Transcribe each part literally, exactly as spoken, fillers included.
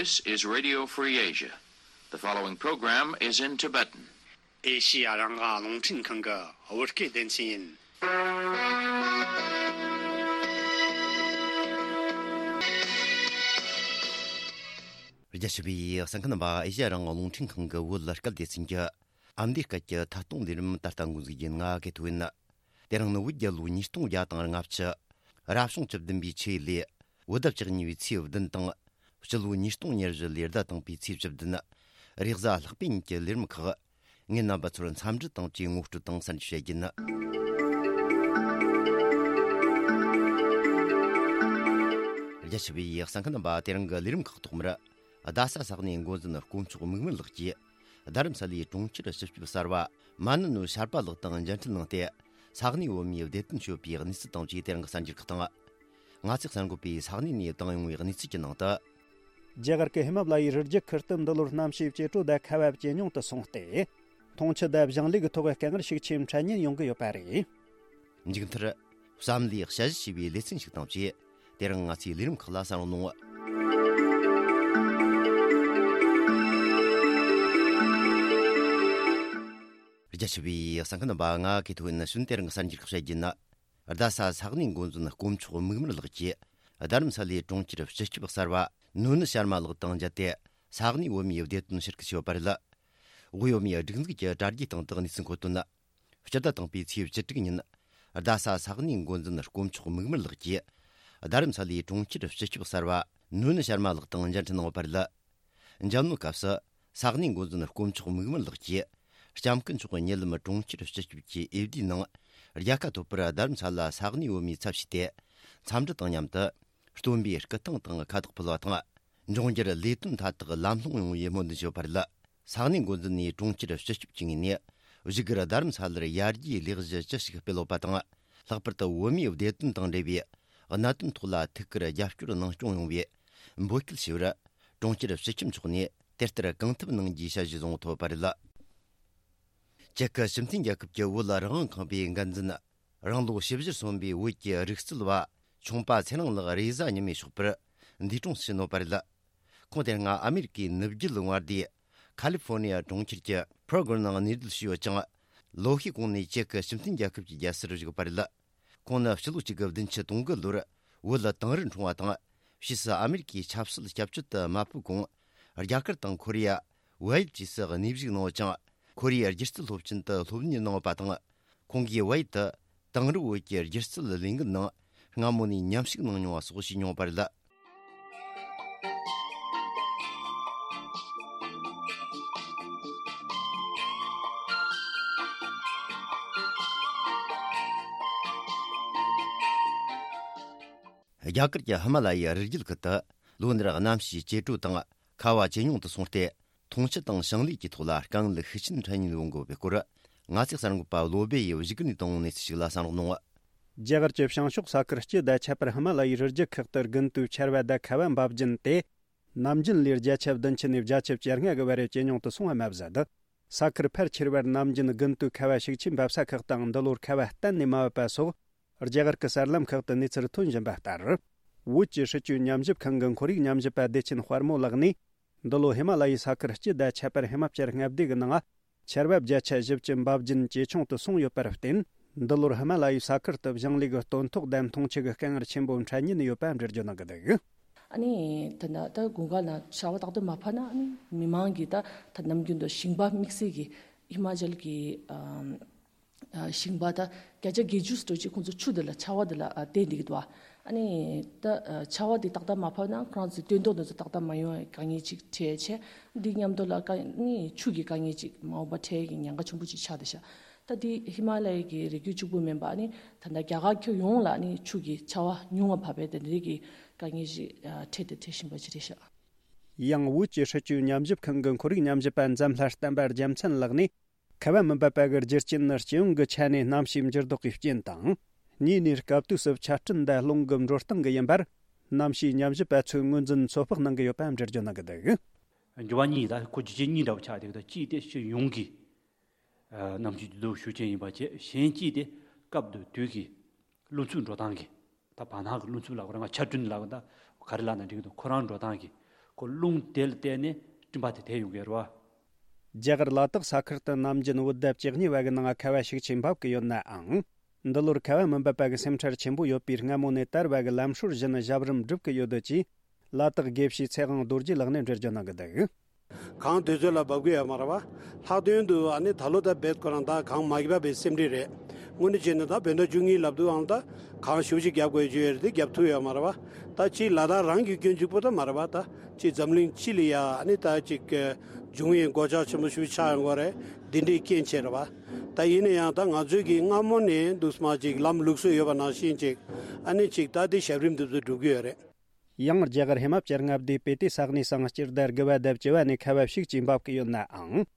This is Radio Free Asia. The following program is in Tibetan. ཨེ་ཤི་ཡ་རང་དབང་རླུང་འཕྲིན་ཁང་གི་བོད་སྐད་སྡེ་ཚན་ཡིན། རྒྱ་ཆེ་བའི་གསན་མཁན་རྣམ་པ། ཨེ་ཤི་ཡ་རང་དབང་རླུང་འཕྲིན་ཁང་གི་བོད་སྐད་སྡེ་ཚན་གྱི་ཨ་མདོའི་སྐད་ཀྱི་ཐད་གཏོང་ལས་རིམ་ད་ལྟ་འགོ་འཛུགས་རྒྱུ་ཡིན། ང་གི་ཐོ་ཡིན། དེ་རིང་ནི་བོད་རྒྱལ་ལོ་ཉིས་སྟོང་བརྒྱ་དང་ལྔ་བཅུ། རབ་བྱུང་བཅུ་བདུན་པའི་ཆུ་ཡོས་ལོའི་བོད་ཟླ་བཅུ་གཉིས་པའི་ཚེས་བདུན་དང་། སྤྱི་ལོ་ཉིས་སྟོང་ཉེར་བཞི་ལོའི་ཟླ་དང་པོའི་ཚེས་བཅུ་བདུན། རེས་གཟའ་ལྷག་པའི་ཉིན་གྱི་ལས་རིམ་ཁག་ངས་རྣམ་པ་ཚོར་འཚམས་འདྲི་དང་བཅས་ངོ་སྤྲོད་དང་གསར་འགྱུར་བཤད་རྒྱུ་ཡིན། རྒྱ་ཆེ་བའི་གསན་མཁན་རྣམ་པ། དེ་རིང་གི་ལས་རིམ་ཁག་ཐོག་མར། རྡ་ས་ས་གནས་འགོ་འཛིན་དཀོན་མཆོག་མིག་དམར་ལགས་ཀྱིས། རྡ་རམ་ས་ལའི་གྲོང་ཁྱེར་སྤྱི་ཁྱབ་གསར་པ་མ་ནུ་ནུ་ཤར་པ་ལགས་དང་མཇལ་འཕྲད་གནང་སྟེ། ས་གནས་བོད་མིའི་བདེ་དོན་སྐྱོད་པའི་གནས་ཚུལ་དང་བཅས་དེ་རིང་གི་གསར་འགྱུར་ཁག་དང་། ང་ཚོས་གསར་འགོད་པས་ས་གནས་ནས་བཏང་ཡོང་བའི་གནས་ཚུལ་གྱི་ནང་དུ། རྒྱ་གར་གྱི་ཧི་མ་ལ་ཡའི་རི་རྒྱུད་ཁུལ་དུ་འདི་ལོར་གནམ་གཤིས་ཇེ་དྲོ་དང་ཁ་བ་ཇེ་ཉུང་དུ་སོང་སྟེ། འཐུང་ཆུ་དང་ཞིང་ལས་ཀྱི་ཐོག་དཀའ་ངལ་ཤུགས་ཆེ་འཕྲད་ཉེན་ཡོང་གི་ཡོད་པ་རེད། མཇུག་མཐར། བསམ་བློའི་དཔྱད་གཞི་ཞེས་པའི་ལེ་ཚན་ཞིག་དང་བཅས། དེ་རིང་ང་ཚོའི་ལས་རིམ་ཁག་ལ་གསན་རོགས་གནང་། རྒྱ་ཆེ་བའི་གསན་མཁན་རྣམ་པ། ང་གི་ཐོ་ཡིན། ནི་གཞུག་དེ་རིང་གི་གསར་འགྱུར་ཁག་བཤད་རྒྱུ་ཡིན། རྡ་ས་ས་གནས་འགོ་འཛིན་དཀོན་མཆོག་མིག་དམར་ལགས་ཀྱིས། རྡ་རམ་ས་ལའི་གྲོང་ཁྱེར་སྤྱི་ཁྱབ་གསར་པ་ནུ་ནུ་ཤར་མ་ལགས་དང་མཇལ་ཏེ། ས་གནས་བོད་མིའི་བདེ་དོན་ཕྱིར་སྐུལ་བྱས་ཡོད་པ་རེད། དབུས་བོད་མིའི་སྒྲིག་འཛུགས་ཀྱི་དྲ་རྒྱའི་སྟེང་དུ་གནས་ཚུལ་འཁོད་དོན། སྤྱི་ཟླ་དང་པོའི་ཚེས་བཅུ་དྲུག་ཉིན། རྡ་ས་ས་གནས་འགོ་འཛིན་དཀོན་མཆོག་མིག་དམར་ལགས་ཀྱིས། རྡ་རམ་ས་ལའི་གྲོང་ཁྱེར་སྤྱི་ཁྱབ་གསར་པ་ནུ་ནུ་ཤར་མ་ལགས་དང་མཇལ་འཕྲད་གནང་ཡོད་པ་རེད། མཇལ་མོལ་སྐབས་སུ། ས་གནས་འགོ་འཛིན་དཀོན་མཆོག་མིག་དམར་ལགས་ཀྱིས། ལྕམ་སྐུ་མཆོག་གི་ཉེ་ལམ་གྲོང་ཁྱེར་སྤྱི་ཁྱབ་ཀྱི་ཨེ་ཕ་ཌི་ནང་། རྒྱལ་ཁ་ཐོབ་པར་རྡ་རམ་ས་ལ་ས་གནས་བོད་མིའི་ཚབ་བྱས་ཏེ། འཚམས་འདྲི་དང་མཉམ་དུ། སྟོན་པའི་སྐུ་ཐང་དང་ཁ་དོག་ཕུལ་བ་དང་། འབྱུང་འགྱུར་ལས་དོན་མཐའ་དག་ལམ་ལྷོང་ཡོང་བའི་སྨོན་འདུན་ཞུས་པ་རེད། ས་གནས་འགོ་འཛིན་ནས་གྲོང་ཁྱེར་སྤྱི་ཁྱབ་ཀྱི་ངོས་ནས། བཞུགས་སྒར་རྡ་རམ་ས་ལར་ཡར་རྒྱས་ལས་གཞི་ཅི་ཞིག་སྤེལ་ཡོད་པ་དང་། ལྷག་པར་དུ་བོད་མིའི་བདེ་དོན་དང་འབྲེལ་བའི་གནད་དོན་ཐོག་ལ་ཐུགས་ཁུར་རྒྱབ་སྐྱོར་གནང་སྐྱོང་ཡོང་བའི་འབོད་སྐུལ་ཞུས་པར། གྲོང་ཁྱེར་སྤྱི་ཁྱབ་མཆོག་ནས་དེ་ལྟར་གང་ཐུབ་གནང་རྒྱུའི་ཞལ་བཞེས་བཟུང་ཐོབ་པ་རེད། ཅེག་གི་སྤྱི་མཐུན་རྒྱལ་ཁབ་ཀྱི་བོད་རང་དབང་ཁང་པའི་འགན་འཛིན། རང་ལོ་བཞི་བཅུ་སོན་པའི་བོད་ཀྱི་རིག་རྩལ་བ་ཆུང་པ་ཚེ་རིང་ལགས་རེས་གཟའ་ཉི་མའི་ཞོགས་པར་འདས་གྲོངས་སུ་ཕྱིན་ཡོད་པ་རེད། ཁོང་དེ་སྔ་ཨ་མེ་རི་ཀའི་ནུབ་རྒྱུད་མངའ་སྡེ་ཁ་ལི་ཧྥོ་ནི་ཡ་གྲོང་ཁྱེར་གྱི་ཕྲོ་གར་ནང་གནས་སྡོད་བྱས་ཡོད་ཅིང་། ལོ་ཤས་གོང་ནས་ཅེག་གི་སྤྱི་མཐུན་རྒྱལ་ཁབ་ཀྱི་རྒྱལ་སར་བཞུགས་པ་རེད། ཁོང་ནི་ཕྱི་ལོ་གཅིག་དགུ་བདུན་ཅུ་དོན་དགུ་ལོར་བོད་དིང་རི་འཁྲུངས་པ་དང་། ཕྱིས་སུ་ཨ་མེ་རི་ཀའི་ཆབ་སྲིད་སྐྱབས་བཅོལ་དུ་མ་ཕེབས་གོང་། རྒྱ་གར་དང་ཁོ་རེ་ཡ། བལ་ཡུལ་བཅས་སུ་གནས་བཞུགས་གནང་ཡོད་ཅིང་། ཁོ་རེའི་སྒྱུ་རྩལ་སློབ་ཆེན་དུ་སློབ་གཉེར་གནང་ཡོད་པ་དང་། ཁོང་གིས་བལ་ཡུལ་དུ་དིང་རི་བོད་ཀྱི་སྒྱུ་རྩལ་ལས་འགུལ་ནང་སྔ་མོ་ནས་མཉམ་ཞུགས་གནང་མྱོང་བ་སོགས་བྱས་མྱོང་བ་རེད། རྒྱ་གར་གྱི་ཧི་མ་ལ་ཡའི་རི་རྒྱུད་ཁུལ་དུ་ལོ་འདིར་གནམ་གཤིས་ཇེ་དྲོ་དང་ཁ་བ་ཇེ་ཉུང་དུ་སོང་སྟེ། འཐུང་ཆུ་དང་ཞིང་ལས་ཀྱི་ཐོག་ལ་དཀའ་ངལ་ཤུགས་ཆེན་འཕྲད་ཉེན་ཡོང་གི་ཡོད་པའི་སྐོར། ང་ཚོའི་གསར་འགོད་པ་བློ་སྦེ་ཡིས་བཞུགས་སྒར་ནས་བཏང་བའི་གནས་ཚུལ་ཞིག་ལ་གསན་རོགས་གནང་། རྒྱ་གར་གྱི་བྱང་ཕྱོགས་ས་ཁུལ་སྤྱི་དང་ཁྱད་པར་ཧི་མ་ལ་ཡའི་རི་རྒྱུད་ཁག་ཏུ་དགུན་དུས་ཆར་བ་དང་ཁ་བ་འབབ་རྒྱུན་ཏེ། ནམ་རྒྱུན་ལོའི་བརྒྱ་ཆ་བདུན་ཅུ་ནས་བརྒྱ་ཆ་བཅོ་ལྔ་གི་བར་ཇེ་ཉུང་དུ་སོང་བ་མ་ཟད། ས་ཁུལ་ཕལ་ཆེ་བར་ནམ་རྒྱུན་དགུན་དུས་ཁ་བ་ཤུགས་ཆེན་འབབ་ས་ཁག་དང་། འདི་ལོར་ཁ་བ་གཏན་ནས་མ་བབས་པ་སོགས། རྒྱ་གར་གྱི་གསར་ལམ་ཁག་ཏུ་གནས་ཚུལ་ཐོན་བཞིན་པ་ལྟར། བོད་ཀྱི་སྲིད་བྱུས་ཉམས་ཞིབ་ཁང་གི་ཁོར་ཡུག་ཉམས་ཞིབ་པ་བདེ་ཆེན་དཔལ་མོ་ལགས་ནས། འདི་ལོ་ཧི་མ་ལ་ཡའི་ས་ཁུལ་སྤྱི་དང་ཁྱད་པར་ཧི་མ་ཅལ་མངའ་སྡེ་གི་ནང་ཆར་བབ་བརྒྱ་ཆ་བཞི་བཅུ་འབབ་རྒྱུན་ཇེ་ཆུང་དུ་སོང་ཡོད་པར་བརྟེན། འདི་ལོར་ཧི་མ་ལ་ཡའི་ས་ཁུལ་དུ་ཞིང་ལས་ཀྱི་སྟོན་ཐོག་དང་འཐུང་ཆུ་གི་དཀའ་ངལ་ཆེན་པོ་འཕྲད་ཉེན་ཡོད་པ་འགྲེལ་བརྗོད་གནང་གི་འདུག། ཨ་ནི་ད་ལྟ་ད་དགུན་ཁ་ལ་ཆར་པ་ཏག་ཏག་མ་བབས་ན། ཨ་ནི་མི་མང་གིས་ད་ད་ནམ་རྒྱུན་དུ་ཞིང་པ་དམིགས་བསལ་གྱིས་ཧི་མ་ཅལ་གྱི་ཨམ་ཨ་ཞིང་པ་ད་བརྒྱ་ཆ་བརྒྱད་ཅུ་ཙམ་ཅིག་ཁོང་ཚོ་ཆུ་དེ་ལ་ཆར་པ་དེ་ལ་ཨ་བརྟེན་བསྡད་ཀྱི་འདུག། ཨ་ཨ་ནི་ད་ཨ་ཆར་པ་དེ་ཏག་ཏག་མ་བབས་ན་ཁོ་རང་ཚོའི་སྟོན་ཐོག་དེ་ཚོ་ཏག་ཏག་མ་ཡོང་བའི་དཀའ་ངལ་ཅིག་འཕྲད་བྱས། འདི་མཉམ་དུ་ལ་དཀའ་ནི་ཆུ་གི་དཀའ་ངལ་ཅིག་མ་འོངས་པ་འཕྲད་ཀྱི་ཉེན་ཁ་ཆེན་པོ་ཅིག་ཆགས་བསྡད་ཤག། ད་དེ་ཧི་མ་ལ་ཡའི་གི་རི་རྒྱུད་གཅིག་པུ་མིན་པ། ཨ་ནི་ད་ལྟ་རྒྱ་གར་ཁྱོན་ཡོངས་ལ་ནི་ཆུ་གི་ཆར་པ་ཉུང་བ་བབས་པས། དེ་འདྲའི་གི་དཀའ་ངལ་ཞིག་ཨ་འཕྲད་དེ་འཕྲད་བཞིན་པ་ཅིག་རེད་ཤག། ཡང་བོད་ཀྱི་སྲིད་བྱུས་ཉམས་ཞིབ་ཁང་གི་ཁོར་ཡུག་ཉམས་ཞིབ་པ་འཛམ་ལྷ་བསྟན་པ་རྒྱལ་མཚན་ལགས་ནས། ཁ་བ་མི་འབབ་པ་གི་རྒྱུ་རྐྱེན་ནི་སྤྱི་ཡོངས་ཀྱི་ཆ་ནས་གནམ་གཤིས་འགྱུར་ལྡོག་གི་རྐྱེན་དང་། གཉིས་ནས་སྐབས་དུས་སུ་ཆར་སྤྲིན་དང་རླུང་གི་འགྲོ་སྟངས་ཀྱི་ཡིན་པར། གནམ་གཤིས་ཉམས་ཞིབ་པ་ཚོས་ངོས་འཛིན་ཚོད་དཔག་གནང་གི་ཡོད་པ་འགྲེལ་བརྗོད་གནང་གི་འདུག། འགྱུར་བ་གཉིས་ད་ཁོ་རྒྱུ་རྐྱེན་གཉིས་འདྲ་བོ་ཆགས་བསྡད་ཀྱི་འདུག། གཅིག་དེ་སྤྱི་ཡོངས་ཀྱི་གནམ་གཤིས་འགྱུར་ལྡོག་ཤུགས་ཆེན་ཡིན་པ་བྱས། གཞན་གཅིག་དེ་སྐབས་དུས་ཀྱི་རླུང་འཚུབ་འགྲོ་སྟངས་ཀྱི། ད་བར་སྣང་གི་རླུང་འཚུབ་ལབ་དགོས་རེད། ང་ཆར་སྤྲིན་ལབ་དགོས། ད་ག་རེ་ལབ་ན་འགྲིག་གི་འདུག། ཁོ་རང་འགྲོ་སྟངས་ཀྱི། ཁོ་རླུང་དེ་ལ་བརྟེན་ནས་སྤྲིན་པ་དེ་དེད་ཡོང་གི་རེད་བ། རྒྱ་གར་ལ་དྭགས་ས་ཁུལ་དུ་ནམ་རྒྱུན་བོད་ཟླ་བཅུ་གཉིས་པ་གི་ནང་ཁ་བ་ཤུགས་ཆེ་འབབ་ཀྱི་ཡོད་ནའང་། འདི་ལོར་ཁ་བ་མི་འབབ་པ་གི་སེམས་ཁྲལ་ཆེན་པོ་ཡོད་པས། སྔ་མོ་ནས་དར་བ་གི་ལམ་སྲོལ་བཞིན་ཞབས་རིམ་སྒྲུབ་ཀྱི་ཡོད་འདུག་ཅེས་ལ་དྭགས་དགེ་བཤེས་ཚེ་དབང་རྡོ་རྗེ་ལགས་ནས་འགྲེལ་བརྗོད་གནང་གི་འདུག། གངས་དུས་ཚོད་ལ་འབབ་ཀྱི་ཡོད་མ་རེད་བ། ལྷག་དོན་དུ་ཨ་ནི་ད་ལོ་ད་རྦད་ཁོ་རང་ད་གངས་མ་བབས་པའི་སེམས་ཁྲལ་རེད། དངོས་གནས་བྱས་ན་ད་བོད་ཟླ་བཅུ་གཉིས་ལབ་དུས་ཨང་ད་གངས་ཞེ་པོ་ཅིག་བརྒྱབ་དགོས་ཀྱི་ཡོད་རེད་དེ་བརྒྱབ་ཐུབ་ཡོད་མ་རེད་བ། ད་ཅིག་ལ་དྭགས་རང་གི་སྐྱོན་གཅིག་པོ་ད་མ་རེད་བ། ད་ཅིག་འཛམ་གླིང་སྤྱི་ལ་ཡ་ཨ་ནི་ད་ཅིག་འབྱུང་བའི་སྒོ་ལྕགས་ཆེན་པོ་ཞེ་པོ་ཆགས་ཡོང་གི་རེད། འདི་འདྲའི་རྐྱེན་བྱས་རེད་བ། ད་ཡིན་ན་ཡང་ད་ང་ཚོས་ཀྱི་སྔ་མོ་ནས་འདུག་སེ་མར་ཅིག་ལམ་ལུགས་སྲོལ་ཡོད་པ་ནང་བཞིན་ཅིག་ཨ་ནི་ཅིག་ད་དེ་ཞབས་རིམ་འདི་ཚོ་སྒྲུབ་ཀྱི་ཡོད་རེད། ཡང་རྒྱ་གར་ཧི་མ་ཅལ་མངའ་སྡེའི་སྤི་ཏི་ས་གནས་སུའང་སྤྱི་ཟླ་དགུ་པ་དང་བཅུ་པ་ནས་ཁ་བ་ཤུགས་ཀྱིས་འབབ་ཀྱི་ཡོད་ནའང་།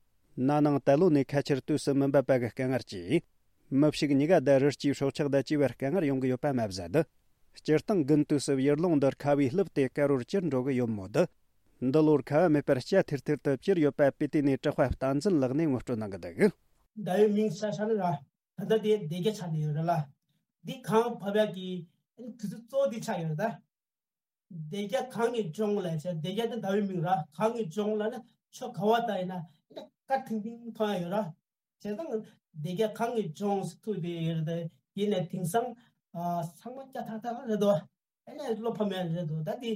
ན་ནིང་ད་ལོ་ནས་ཁ་ཆར་དུས་སུ་མི་འབབ་པ་གི་དཀའ་ངལ་གྱིས། མི་ཕྱུགས་གཉིས་ཀ་དང་རི་སྐྱེས་སྲོག་ཆགས་དང་བཅས་པར་དཀའ་ངལ་ཡོང་གི་ཡོད་པ་མ་ཟད། སྤྱིར་བཏང་དགུན་དུས་སུ་ཡུལ་ལུང་འདིར་ཁ་བས་བསླུས་ཏེ་དཀར་པོར་གྱུར་འགྲོ་གི་ཡོད་མོད། འདི་ལོར་ཁ་བ་མེད་པར་སྐྱ་ཐིར་ཐིར་དུ་གྱུར་ཡོད་པ་སྤི་ཏི་ནས་གྲགས་པ་བསྟན་འཛིན་ལགས་ནས་ངོ་སྤྲོད་གནང་གི་འདུག། ཟླ་བའི་མིང་ས་ས་ནི་ར། ད་ལྟ་དེ་སྡེ་བརྒྱད་ཆགས་ནས་ཡོད་རེད་ལ། འདི་གངས་བབས་ཡག་གི་དུས་ཚོད་གཙོ་བོ་འདི་ཆགས་ཡོད་རེད་ད། སྡེ་བརྒྱད་གངས་ཀྱི་ལྗོངས་ལབ་བྱས། སྡེ་བརྒྱད་དེ་ཟླ་བའི་མིང་ར། གངས་ཀྱི་ལྗོངས་ལབ་ན་ཕྱོགས་ག་བ་ལྟ་ཡིན་ན་ཨ་ནི་དཀར་ཐིང་ཐིང་མཐོང་ཡག་ཡོད་ར། བྱས་ཙང་སྡེ་བརྒྱད་གངས་ཀྱི་ལྗོངས་ཟེར་ཐུག་དེ་ཡོད་རེད་དེ། ཡིན་ནའི་དེང་སང་ཨ་ཚང་མ་སྐྱ་ཐག་ཐག་རེད་དོ། ཨ་ནི་བློ་ཕམ་ཡག་རེད་དོ་ད་དེ།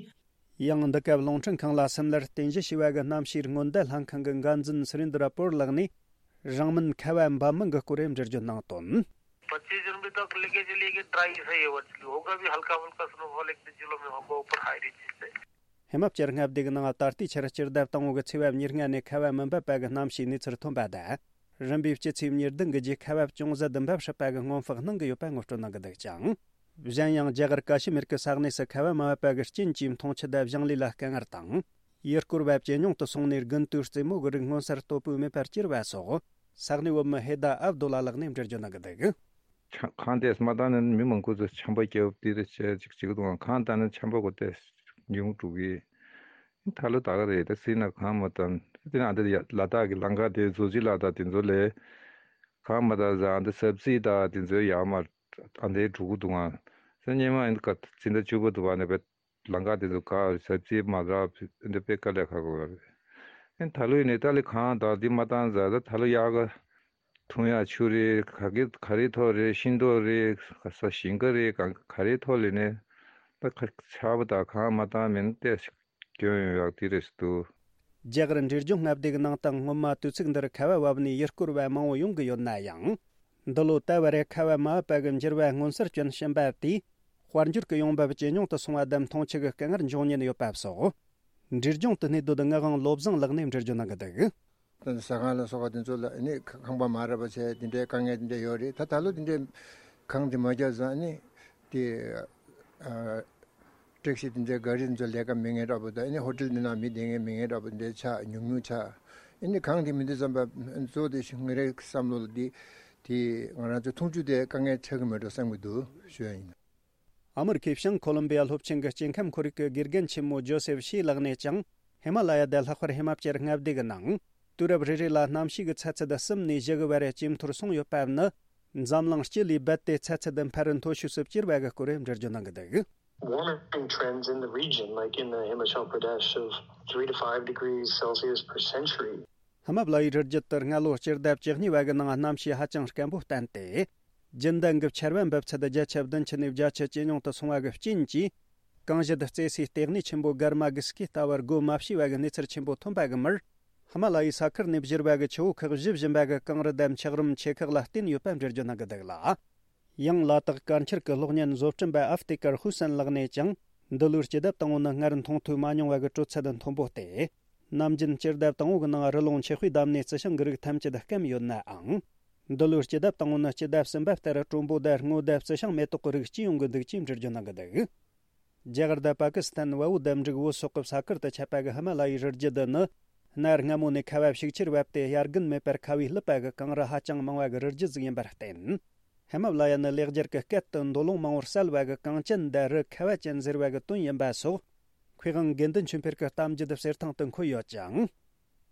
ཡང་འདི་སྐབས་རླུང་འཕྲིན་ཁང་ལ་སིམ་ལར་རྟེན་གཞི་བྱས་པ་གི་གནམ་གཤིས་སྔོན་བརྡ་ལྷན་ཁང་གི་འགན་འཛིན་སུ་རིན་དྲ་པོར་ལགས་ནས། རང་མིན་ཁ་བ་འབབ་མིན་གྱི་སྐོར་འགྲེལ་བརྗོད་གནང་དོན། पच्चीस जून भी तक लेके चलिए कि ड्राई सा ही है वर्चुअली होगा भी हल्का फुल्का स्नोफॉल एक दो जिलों में होगा ऊपर हाई रेंजेस पे। ཧི་མ་ཅལ་མངའ་སྡེ་གི་ནང་ད་ལྟའི་ཆར་སྤྱི་ཟླ་དང་པོ་གི་ཚེས་པ་ཉེར་ལྔ་ནས་ཁ་བ་མི་འབབ་པ་གི་གནམ་གཤིས་གནས་ཚུལ་ཐོན་པ་དང་། རིམ་པས་སྤྱི་ཚེས་ཉེར་བདུན་གྱི་རྗེས་ཁ་བ་ཅུང་ཟད་འབབ་སྲིད་པ་གི་སྔོན་དཔག་གནང་གི་ཡོད་པ་ངོ་སྤྲོད་གནང་གི་འདུག་ཅིང་། གཞན་ཡང་རྒྱ་གར་ཀ་ཤི་མིར་གྱི་ས་གནས་སུ་ཁ་བ་མ་བབས་པ་གི་རྐྱེན་གྱིས་འཐུང་ཆུ་དང་ཞིང་ལས་ལ་དཀའ་ངལ་དང་། ཡུལ་སྐོར་བ་ཇེ་ཉུང་དུ་སོང་ནས་དགུན་དུས་རྩེད་མོ་གི་རིགས་མངོན་གསལ་དོད་པོས་མེད་པར་གྱུར་བ་སོགས་ས་གནས་བོད་མི་ཧེ་ད་ཨབ་དུ་ལ་ལགས་ནས་འགྲེལ་བརྗོད་གནང་གི་འདུག། ཆ་གངས་དེ་མ་བཏང་ན་མི་མང་པོ་ཚོ་ཆམ་པ་བརྒྱབ་དེ་རེ་བྱས་ཅིག་ཅིག་འདུག་གངས་བཏང་ན་ཆམ་པ་གོ་དེ་ཉུང་འགྲོ་གི། ད་ལོ་ད་ག་རེད་ད་སྲིད་ན་གངས་མ་བཏང་དེ་ན་འདི་ལ་དྭགས་ཀྱི་ལམ་ཁ་དེ་བཟོ་ཅིག་ལ་ད་དེ་ཚོ་ལས་གངས་མ་བཏང་ཟ་འདི་སབ་སི་ད་དེ་ཚོ་ཡར་མར་ཨ་འདྲའི་འགྲོ་གི་འདུག་ག་ས་སྙེ་མ་ཡིན་ག་ཚིན་ད་བཅུ་པོ་འདུག་བ་ནས་བེད། ལམ་ཁ་དེ་ཚོ་ག་ཟབ་རྩིས་མ་རག་འདི་དཔེ་དཀའ་ལས་ཁག་པོ་རེད། ཨེ་ད་ལོ་ཡིན་ནའི་ཏཱ་ལི་གངས་དང་འདི་མ་བཏང་ཟ་ད་ད་ལོ་ཡག་ག་འཐུང་ཡག་ཆུ་རེད། ག་གི་ག་རེ་ཐོག་རེད། ཤིང་ཏོག་རེད། ག་ས་ཞིང་ཁ་རེད། ག་ག་རེ་ཐོག་ལས་ནས་ད་ཁ་ཆར་པ་དང་གངས་མ་བཏང་མིན་ཏེ་སྐྱོན་ཡོང་ཡག་དེ་རེད་འདུག། རྒྱ་གར་འབྲས་ལྗོངས་མངའ་སྡེ་གི་ནང་དུ་སྔོན་མ་དུས་ཚིགས་འདིར་ཁ་བ་བབས་ནས་ཡུལ་སྐོར་བ་མང་བོ་ཡོང་གི་ཡོད་ན་ཡང་། འདི་ལོ་ད་བར་ཁ་བ་མ་བབས་པ་གི་འགྱུར་བ་མངོན་གསལ་སྐྱོན་ཕྱིན་པ་དེས་དཔལ་འབྱོར་གྱི་ཡོང་འབབ་ཇེ་ཉུང་དུ་སོང་བ་དང་འཐུང་ཆུ་གི་དཀའ་ངལ་འབྱུང་ཉེན་ཡོད་པ་སོགས། འབྲས་ལྗོངས་དུ་གནས་སྡོད་ངག་དབང་བློ་བཟང་ལགས་ནས་འགྲེལ་བརྗོད་གནང་གི་འདུག། ཟ་ཁང་ལ་སོགས་པ་དེ་ཚོ་ལ་ནི་ཁང་པ་མ་རག་པ་བྱས་དེ་འདྲའི་དཀའ་ངལ་དེ་འདྲ་ཡོད་རེད། ད་ད་ལོ་དེ་འདྲའི་གངས་དེ་མ་བརྒྱབ་ཙང་ནི་དེ། ཨ། ཊེག་སི་དེ་འདྲའི་ག་རི་དེ་ཚོ་ལས་ཀ་མེད་མཁན་འདྲ་པོ་དང་ཨ་ནི་ཧོ་ཊེལ་འདི་ནང་མི་བསྡད་མཁན་མེད་མཁན་འདྲ་པོ་དེ་འདྲའི་ཆགས་ཉུང་ཉུང་ཆགས། ཨ་ནི་གངས་དེ་མི་འདུག་བསམ་པ་གཙོ་བོ་དེ་ཞིག་ང་རའི་བསམ་བློ་ལ་འདི་དེ་ང་རང་ཚོ་འཐུང་ཆུ་དེ་དཀའ་ངལ་འཕྲད་ཀྱི་མེད་འགྲོ་བསམ་གྱི་འདུག་ཞུ་ཡ་ཡིན། ཨ་མི་རི་ཀའི་བྱང་ཁོ་ལོམ་བི་ཡ་སློབ་ཆེན་གྱི་སྐྱེ་ཁམས་ཁོར་ཡུག་གི་དགེ་རྒན་ཆེན་མོ་ཇོ་སེབ་ཤི་ལགས་ནས་ཀྱང་ཧི་མ་ལ་ཡ་དང་ལྷག་པར་ཧི་མ་ཅལ་མངའ་སྡེ་གི་ནང་དུས་རབས་རེ་རེ་ལ་གནམ་གཤིས་ཀྱི་ཚ་ཚད་གསུམ་ནས་བཞི་གི་བར་ཇེ་མཐོར་སོང་ཡོད་པ་ནི། འཛམ་གླིང་སྤྱི་ལས་རྦད་དེ་ཚ་ཚད་འཕར་མཐོ་ཤོས་སུ་གྱུར་བ་གི་སྐོར་འགྲེལ་བརྗོད་གནང་གི་འདུག། Warming trends in the region, like in the Himachal Pradesh, of three to five degrees Celsius per century. ཧི་མ་ལ་ཡའི་རི་རྒྱུད་དུ་སྔ་ལོ་སྤྱི་ཟླ་བཅུ་གཉིས་པ་གི་ནང་གནམ་གཤིས་ཧ་ཅང་སྐམ་པོ་བསྟན་ཏེ། རྒྱུན་ལྡན་གྱི་ཆར་པ་འབབ་ཚད་བརྒྱ་ཆ་བདུན་ཅུ་ནས་བརྒྱ་ཆ་ཇེ་ཉུང་དུ་སོང་བ་གི་རྐྱེན་གྱིས། གངས་ཞལ་རྩེ་སའི་ལྟེ་གནས་ཆེན་པོ་གྷར་མ་གྷི་སི་ཀི་ལྟ་བུར་སྒོ་མ་ཕྱེ་བ་གི་གནས་ཚུལ་ཆེན་པོ་ཐོན་པ་གི་མིར། ཧི་མ་ལ་ཡའི་ས་ཁུལ་ནས་བཞུར་བ་གི་ཆུ་བོ་ཁག་བཞི་བཞིན་པ་གི་གངས་རི་དང་འཁྱགས་རོམ་ཆེ་ཁག་ལ་བརྟེན་ཡོད་པ་འགྲེལ་བརྗོད་གནང་གི་འདུག་ལ། ཡང་ལ་དྭགས་དཀར་འཁྱིལ་གྱི་གློག་བརྙན་བཟོ་སྐྲུན་པ་ཨབ་ཏི་ཀར་ཧུ་སན་ལགས་ནས་ཀྱང་། འདི་ལོའི་སྤྱི་ཟླ་དང་པོ་ནི་སྔར་མཐོང་ཐོས་མ་མྱོང་བ་གི་དྲོད་ཚད་མཐོན་པོ་སྟེ། ནམ་རྒྱུན་སྤྱི་ཟླ་དང་པོ་གི་ནང་རི་ཀླུང་ཆུ་དཔེ་བསྡམས་ནས་རྩི་ཤིང་གི་རིགས་ཐམས་ཅད་སྐམ་ཡོད་ནའང་། འདི་ལོའི་སྤྱི་ཟླ་དང་པོ་ནི་སྤྱི་ཟླ་གསུམ་པ་ལྟར་དྲོན་པོ་དང་སྔོ་དང་རྩི་ཤིང་མེ་ཏོག་གི་རིགས་སྐྱེ་ཡོང་གི་འདུག་ཅེས་འགྲེལ་བརྗོད་གནང་གི་འདུག། རྒྱ་གར་དང་པ་ཀི་སི་ཐན་བལ་པོ་དང་འབྲུག་བོད་སོག་གི་ས་ཁུལ་དུ་ཁྱབ་པ་གི་ཧི་མ་ལ་ཡའི་རི་རྒྱུད་འདི་ནི། གནའ་སྔ་མོ་ནས་ཁ་བ་ཤུགས་ཆེར་བབས་ཏེ་དབྱར་དགུན་མེད་པར་ཁ་བས་བསླུས་པ་གི་གངས་རི་ཧ་ཅང་མང་བ་གི་རི་རྒྱུད་ཟིག་ཡིན་པར་བརྟེན། ཧི་མ་ལ་ཡ་ནི་ལེགས་སྦྱར་གྱི་སྐད་དུ་མདོ་ལུང་མང་པོར་གསལ་བ་གི་གངས་ཅན་དང་རི་ཁ་བ་ཅན་ཟེར་བ་གི་དོན་ཡིན་པ་སོགས། མཁས་དབང་དགེ་འདུན་ཆོས་འཕེལ་གྱི་གཏམ་རྒྱུད་གསེར་ཐང་དུ་འཁོད་ཡོད་ཅིང་།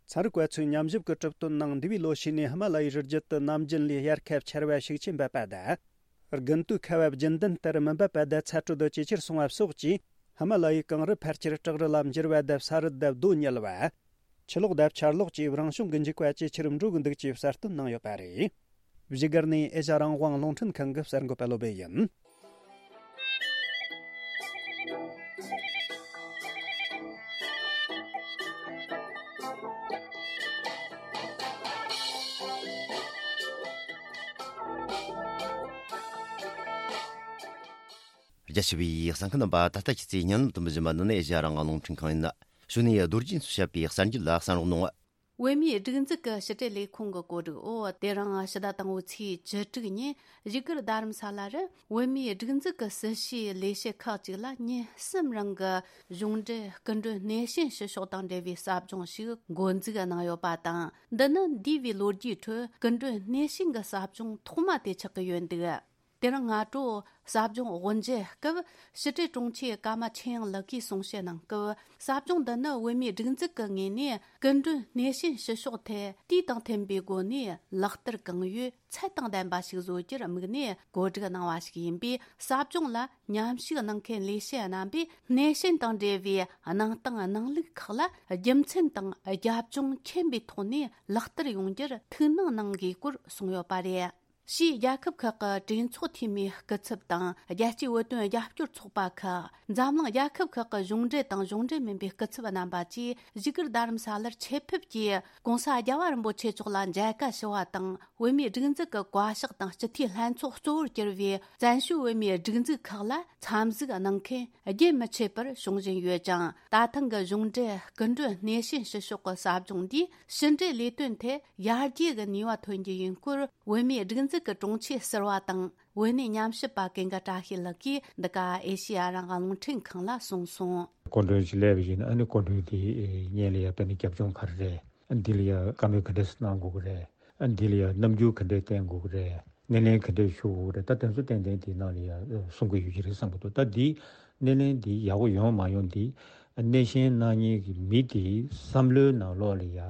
ཚན་རིག་པ་ཚོས་ཉམས་ཞིབ་ཀྱི་གྲུབ་དོན་ནང་འདས་པའི་ལོ་ཤས་ནས་ཧི་མ་ལ་ཡའི་རི་རྒྱུད་དུ་ནམ་རྒྱུན་ལས་དབྱར་ཁ་བ་ཆར་པ་ཤུགས་ཆེ་འབབ་པ་དང་། དགུན་དུས་ཁ་བ་རྒྱུན་ལྡན་ལྟར་མི་འབབ་པ་དང་ཚ་དྲོད་ཇེ་ཆེར་སོང་བ་སོགས་ཀྱིས། ཧི་མ་ལ་ཡའི་གངས་རི་ཕལ་ཆེར་བྲག་རི་ལ་འགྱུར་བ་དང་ས་རུད་དང་རྡོ་ཉིལ་བ། ཆུ་ལོག་དང་ཆར་ལོག་བཅས་རང་བྱུང་གི་འཇིགས་པ་ཇེ་ཆེར་འགྲོ་གི་འདུག་ཅེས་གསལ་སྟོན་གནང་ཡོད་པ་རེད། བཞུགས་སྒར་ནས་ཨེ་ཤ་རང་དབང་རླུང་འཕྲིན་ཁང་གི་གསར་འགོད་པ་བློ་བྷེ་ཡིན། རྒྱ་ཆེ་བའི་གསན་མཁན་རྣམ་པ། ད་ལྟ་ཁྱེད་ཚོས་སྙན་ལམ་དུ་འབུལ་བཞིན་པ་འདི་ནི་ཨེ་ཤ་ཡ་རང་དབང་རླུང་འཕྲིན་ཁང་ཡིན། གཞུག་ནས་རྡོ་རྗེ་འཚོ་བཤད་པའི་གསར་འགྱུར་ལ་གསན་རོགས་གནང་། བོད་མིའི་སྒྲིག་འཛུགས་ཀྱི་ཕྱི་དྲིལ་ལས་ཁུངས་ཀྱི་གོ་སྒྲིག་འོག་དེ་རིང་ཕྱི་ཟླ་དང་པོའི་ཚེས་བཅུ་དྲུག་ཉིན་བཞུགས་སྒར་རྡ་རམ་ས་ལ་རུ་བོད་མིའི་སྒྲིག་འཛུགས་ཀྱི་སྲིད་བྱུས་ལས་བྱེད་ཁག་ཅིག་ལ་ཉིན་གསུམ་རིང་གི་གཞུང་འབྲེལ་སྐུ་མགྲོན་སྣེ་ཤན་ཞུ་ཕྱོགས་དང་འབྲེལ་བའི་ཟབ་སྦྱོང་ཞིག་འགོ་འཛུགས་གནང་ཡོད་པ་དང་། འདི་ནི་འདས་པའི་ལོ་རྒྱུས་ཁྲོད་སྐུ་མགྲོན་སྣེ་ཤན་གྱི་ཟབ་སྦྱོང་ཐོག་མ་དེ་ཆགས་ཀྱི་ཡོད་འདུག་དེ་རིང་སྔ་དྲོ་ཟབ་སྦྱོང་དབུ་འབྱེད་སྐབས་ཕྱི་དྲིལ་དྲུང་ཆེ་ཀརྨ་ཆོས་དབྱིངས་ལགས་ཀྱིས་གསུང་བཤད་གནང་སྐབས། ཟབ་སྦྱོང་འདི་ནི་བོད་མིའི་སྒྲིག་འཛུགས་ཀྱི་ངོས་ནས་སྐུ་མགྲོན་སྣེ་ཤན་ཞུ་ཕྱོགས་ཐད་དུས་དང་མཐུན་པའི་སྒོ་ནས་ལག་བསྟར་གང་ཡོད་ཚད་དང་ལྡན་པ་ཞིག་བཟོ་རྒྱུར་དམིགས་ནས་གོ་སྒྲིག་གནང་བ་ཞིག་ཡིན་པས། ཟབ་སྦྱོང་ལ་མཉམ་ཞུགས་གནང་མཁན་ལས་བྱེད་རྣམ་པས་སྣེ་ཤན་དང་འབྲེལ་བའི་གནང་སྟངས་གནང་ལུགས་ཁག་ལ་རྒྱུ་མཚན་དང་རྒྱབ་ལྗོངས་མཁྱེན་པའི་ཐོག་ནས་ལག་བསྟར་ཡོང་རྒྱུར་ཐུགས་སྣང་གནང་དགོས་སྐོར་གསུངས་ཡོད་པ་རེད། ཕྱིའི་རྒྱལ་ཁབ་ཁག་གི་གྲོས་ཚོགས་འཐུས་མིའི་སྐུ་ཚབ་དང་། རྒྱལ་སྤྱིའི་བོད་དོན་རྒྱབ་སྐྱོར་ཚོགས་པ་ཁག་འཛམ་གླིང་རྒྱལ་ཁབ་ཁག་གི་གཞུང་འབྲེལ་དང་གཞུང་འབྲེལ་མིན་པའི་སྐུ་ཚབ་རྣམ་པ་བཅས་བཞུགས་སྒར་རྡ་རམ་ས་ལར་ཆེད་ཕེབས་ཀྱིས་༸གོང་ས་༸རྒྱལ་བ་རིན་པོ་ཆེ་མཆོག་ལ་མཇལ་ཁ་ཞུ་བ་དང་། བོད་མིའི་སྒྲིག་འཛུགས་ཀྱི་བཀའ་ཤག་དང་སྤྱི་འཐུས་ལྷན་ཚོགས་གཙོ་བོར་གྱུར་བའི་བཙན་བྱོལ་བོད་མིའི་སྒྲིག་འཛུགས་ཁག་ལ་འཚམས་གཟིགས་གནང་མཁན་རྒྱུན་མི་ཆད་པར་བྱུང་བཞིན་ཡོད་ཅིང་། ད་ཐེངས་ཀྱི་གཞུང་འབྲེལ་སྐུ་མགྲོན་སྣེ་ཤན་ཞུ་ཕྱོགས་ཀྱི་ཟབ་སྦྱོང་འདིས་ཕྱི་འབྲེལ་ལས་དོན་ཐད་ཡར་རྒྱས་ཀྱི་ནུས་པ་ཐོན་རྒྱུ་ཡིན་སྐོར། བོད་མིའི་སྒྲིག་འཛུགས་ཀྱི་དྲུང་ཆེ་ཟུར་པ་དང་། བོད་གནས་ཉམས་ཞིབ་པ་ཀུན་དགའ་བཀྲ་ཤིས་ལགས་ཀྱིས་འདི་ག་ཨེ་ཤེ་ཡ་རང་དབང་རླུང་འཕྲིན་ཁང་ལ་གསུངས་སོང་། སྐུ་མགྲོན་ཞིག་སླེབས་པ་ཡིན་ན། ཨ་ནི་སྐུ་མགྲོན་དེ་སྔོན་ལ་ཡ་ད་ནི་རྒྱབ་ལྗོངས་ག་རེ་རེད། ཨ་འདི་ལ་ཡ་བཀའ་མོལ་ག་འདྲས་གནང་དགོས་ཀྱི་རེད། ཨ་འདི་ལ་ཡ་རྣམ་འགྱུར་ག་འདྲས་བསྟན་དགོས་ཀྱི་རེད། སྣེ་ལེན་ག་འདྲས་ཞུ་དགོས་ཀྱི་རེད། ད་དེ་ཚོ་ཏན་ཏན་དེའི་ནང་ལ་ཡ་གསུང་གི་ཡོད་ཀྱི་རེད་བསམ་གྱི་འདུག་ད་འདི་སྣེ་ལེན་འདི་ཡག་པོ་ཡོང་མ་ཡོང་འདི་སྣེ་ཤན་གནང་མཁན་གྱི་མི་དེའི་བསམ་བློའི་ནང་ལོགས་ལ་ཡ།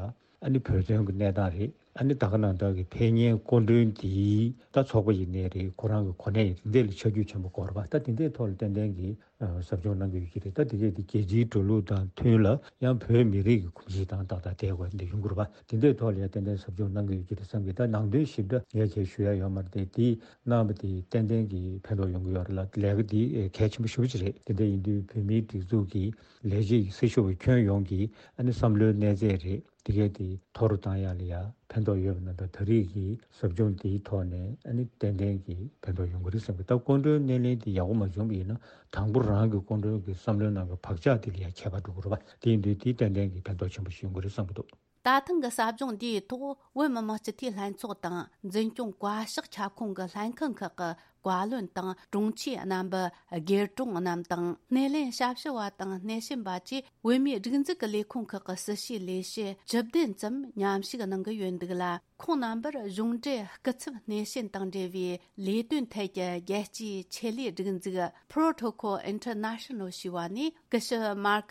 ཨ་ནི་བོད་དོན་གྱི་གནས་སྟངས་རེད། ཨ་ནི་ད་ག་ནང་ལྟར་གྱི་ཕེབས་མཁན་སྐུ་མགྲོན་དེའི་ད་ཚོགས་པ་ཡིན་ནའི་རེད། ཁོ་རང་གི་གོ་གནས་ཡིན་འདི་ལ་ཆ་རྒྱུས་ཆེན་པོ་དགོས་རེད་པ། ད་དེ་འདྲའི་ཐོག་ལ་ཏན་ཏན་གྱི་ཨ་ཟབ་སྦྱོང་གནང་གི་ཡོད་ཀྱི་རེད། ད་དེ་གས་དེ་རྒྱལ་སྤྱིའི་འགྲོ་ལུགས་དང་མཐུན་ལ་ཡང་བོད་མི་རིགས་ཀྱི་གོམས་གཤིས་དང་ཏག་ཏག་དེ་བ་འདི་ཡོང་གི་རེད་པ། དེ་འདྲའི་ཐོག་ལ་ཡང་ཏན་ཏན་ཟབ་སྦྱོང་གནང་གི་ཡོད་ཀྱི་རེད་བསམ་གི། ད་ནང་དོན་ཞིབ་ཕྲ་ངས་ཁྱེད་ཞུ་ཡ་ཡོད་མ་རེད་དེ། དེ་གནང་བ་དེ་ཏན་ཏན་གྱི་ཕན་ཐོགས་ཡོང་གི་ཡོད་རེད་ལ། ལས་ཀ་དེ་གལ་ཆེན་པོ་ཞེ་པོ་ཅིག་རེད། དེ་འདྲ་ཡིན་དུས་བོད་མིའི་སྒྲིག་འཛུགས་ཀྱི་ལས་བྱེད་ཀྱི་སྲི་ཞུ་བ་ཁྱོན་ཡོངས་ཀྱི་ཨ་ནི་བསམ་བློའི་གནས་ཚད་རེད། དེ་གས་དེ་མཐོ་རུ་བཏང་ཡ་ལ་ཡ་ཕན་ཐོགས་ཡོད་པ་ན། ད་ད་རེས་ཀྱི་ཟབ་སྦྱོང་དེའི་ཐོག་ནས་ཨ་ནི་ཏན་ཏན་གྱི་ཕན་ཐོགས་ཡོང་གི་རེད་བསམ་གི། ད་སྐུ་མགྲོན་སྣེ་ལེན་དེ་ཡག་པོ་མ་བྱུང་བ་ཡིན་ན། དང་པོ་རང་གི་སྐུ་མགྲོན་གྱི་བསམ་བློའི་ནང་གི་བག་ཆགས་དེ་ལ་ཡ་ཁྱད་པར་འགྲོ་གི་རེད་པ། དེ་ཡིན་དུས་དེ་ཏན་ཏན་གྱི་ཕན་ཐོགས་ཆེན་པོ་ཞིག་ཡོང་གི་རེད་བསམ་གི་འདུག་ད་ཐེངས་ཀྱི་ཟབ་སྦྱོང་འདིའི་ཐོག་བོད་མི་མང་སྤྱི་འཐུས་ལྷན་ཚོགས་དང་འཛིན་སྐྱོང་བཀའ་ཤག་ཁྱབ་ཁོངས་ཀྱི་ལྷན་ཁང་ཁག་གི་བཀའ་བློན་དང་དྲུང་ཆེ་རྣམ་པ། དགེ་དྲུང་རྣམས་དང་། སྣེ་ལེན་ཞབས་ཞུ་བ་དང་སྣེ་ཤན་པ་བཅས་བོད་མིའི་སྒྲིག་འཛུགས་ཀྱི་ལས་ཁུངས་ཁག་གི་སྲི་ཞུའི་ལས་བྱེད་བཅུ་བདུན་ཙམ་མཉམ་ཞུགས་གནང་གི་ཡོད་འདུག་ལ། ཁོང་རྣམ་པར་གཞུང་འབྲེལ་སྐུ་ཚབ་སྣེ་ཤན་དང་འབྲེལ་བའི་ལས་དོན་ཐད་ཀྱི་རྒྱལ་སྤྱིའི་ཆེད་ལས་སྒྲིག་འཛུགས་Protocol International ཞེས་པ་ནས་སྐུ་ཞབས་Mark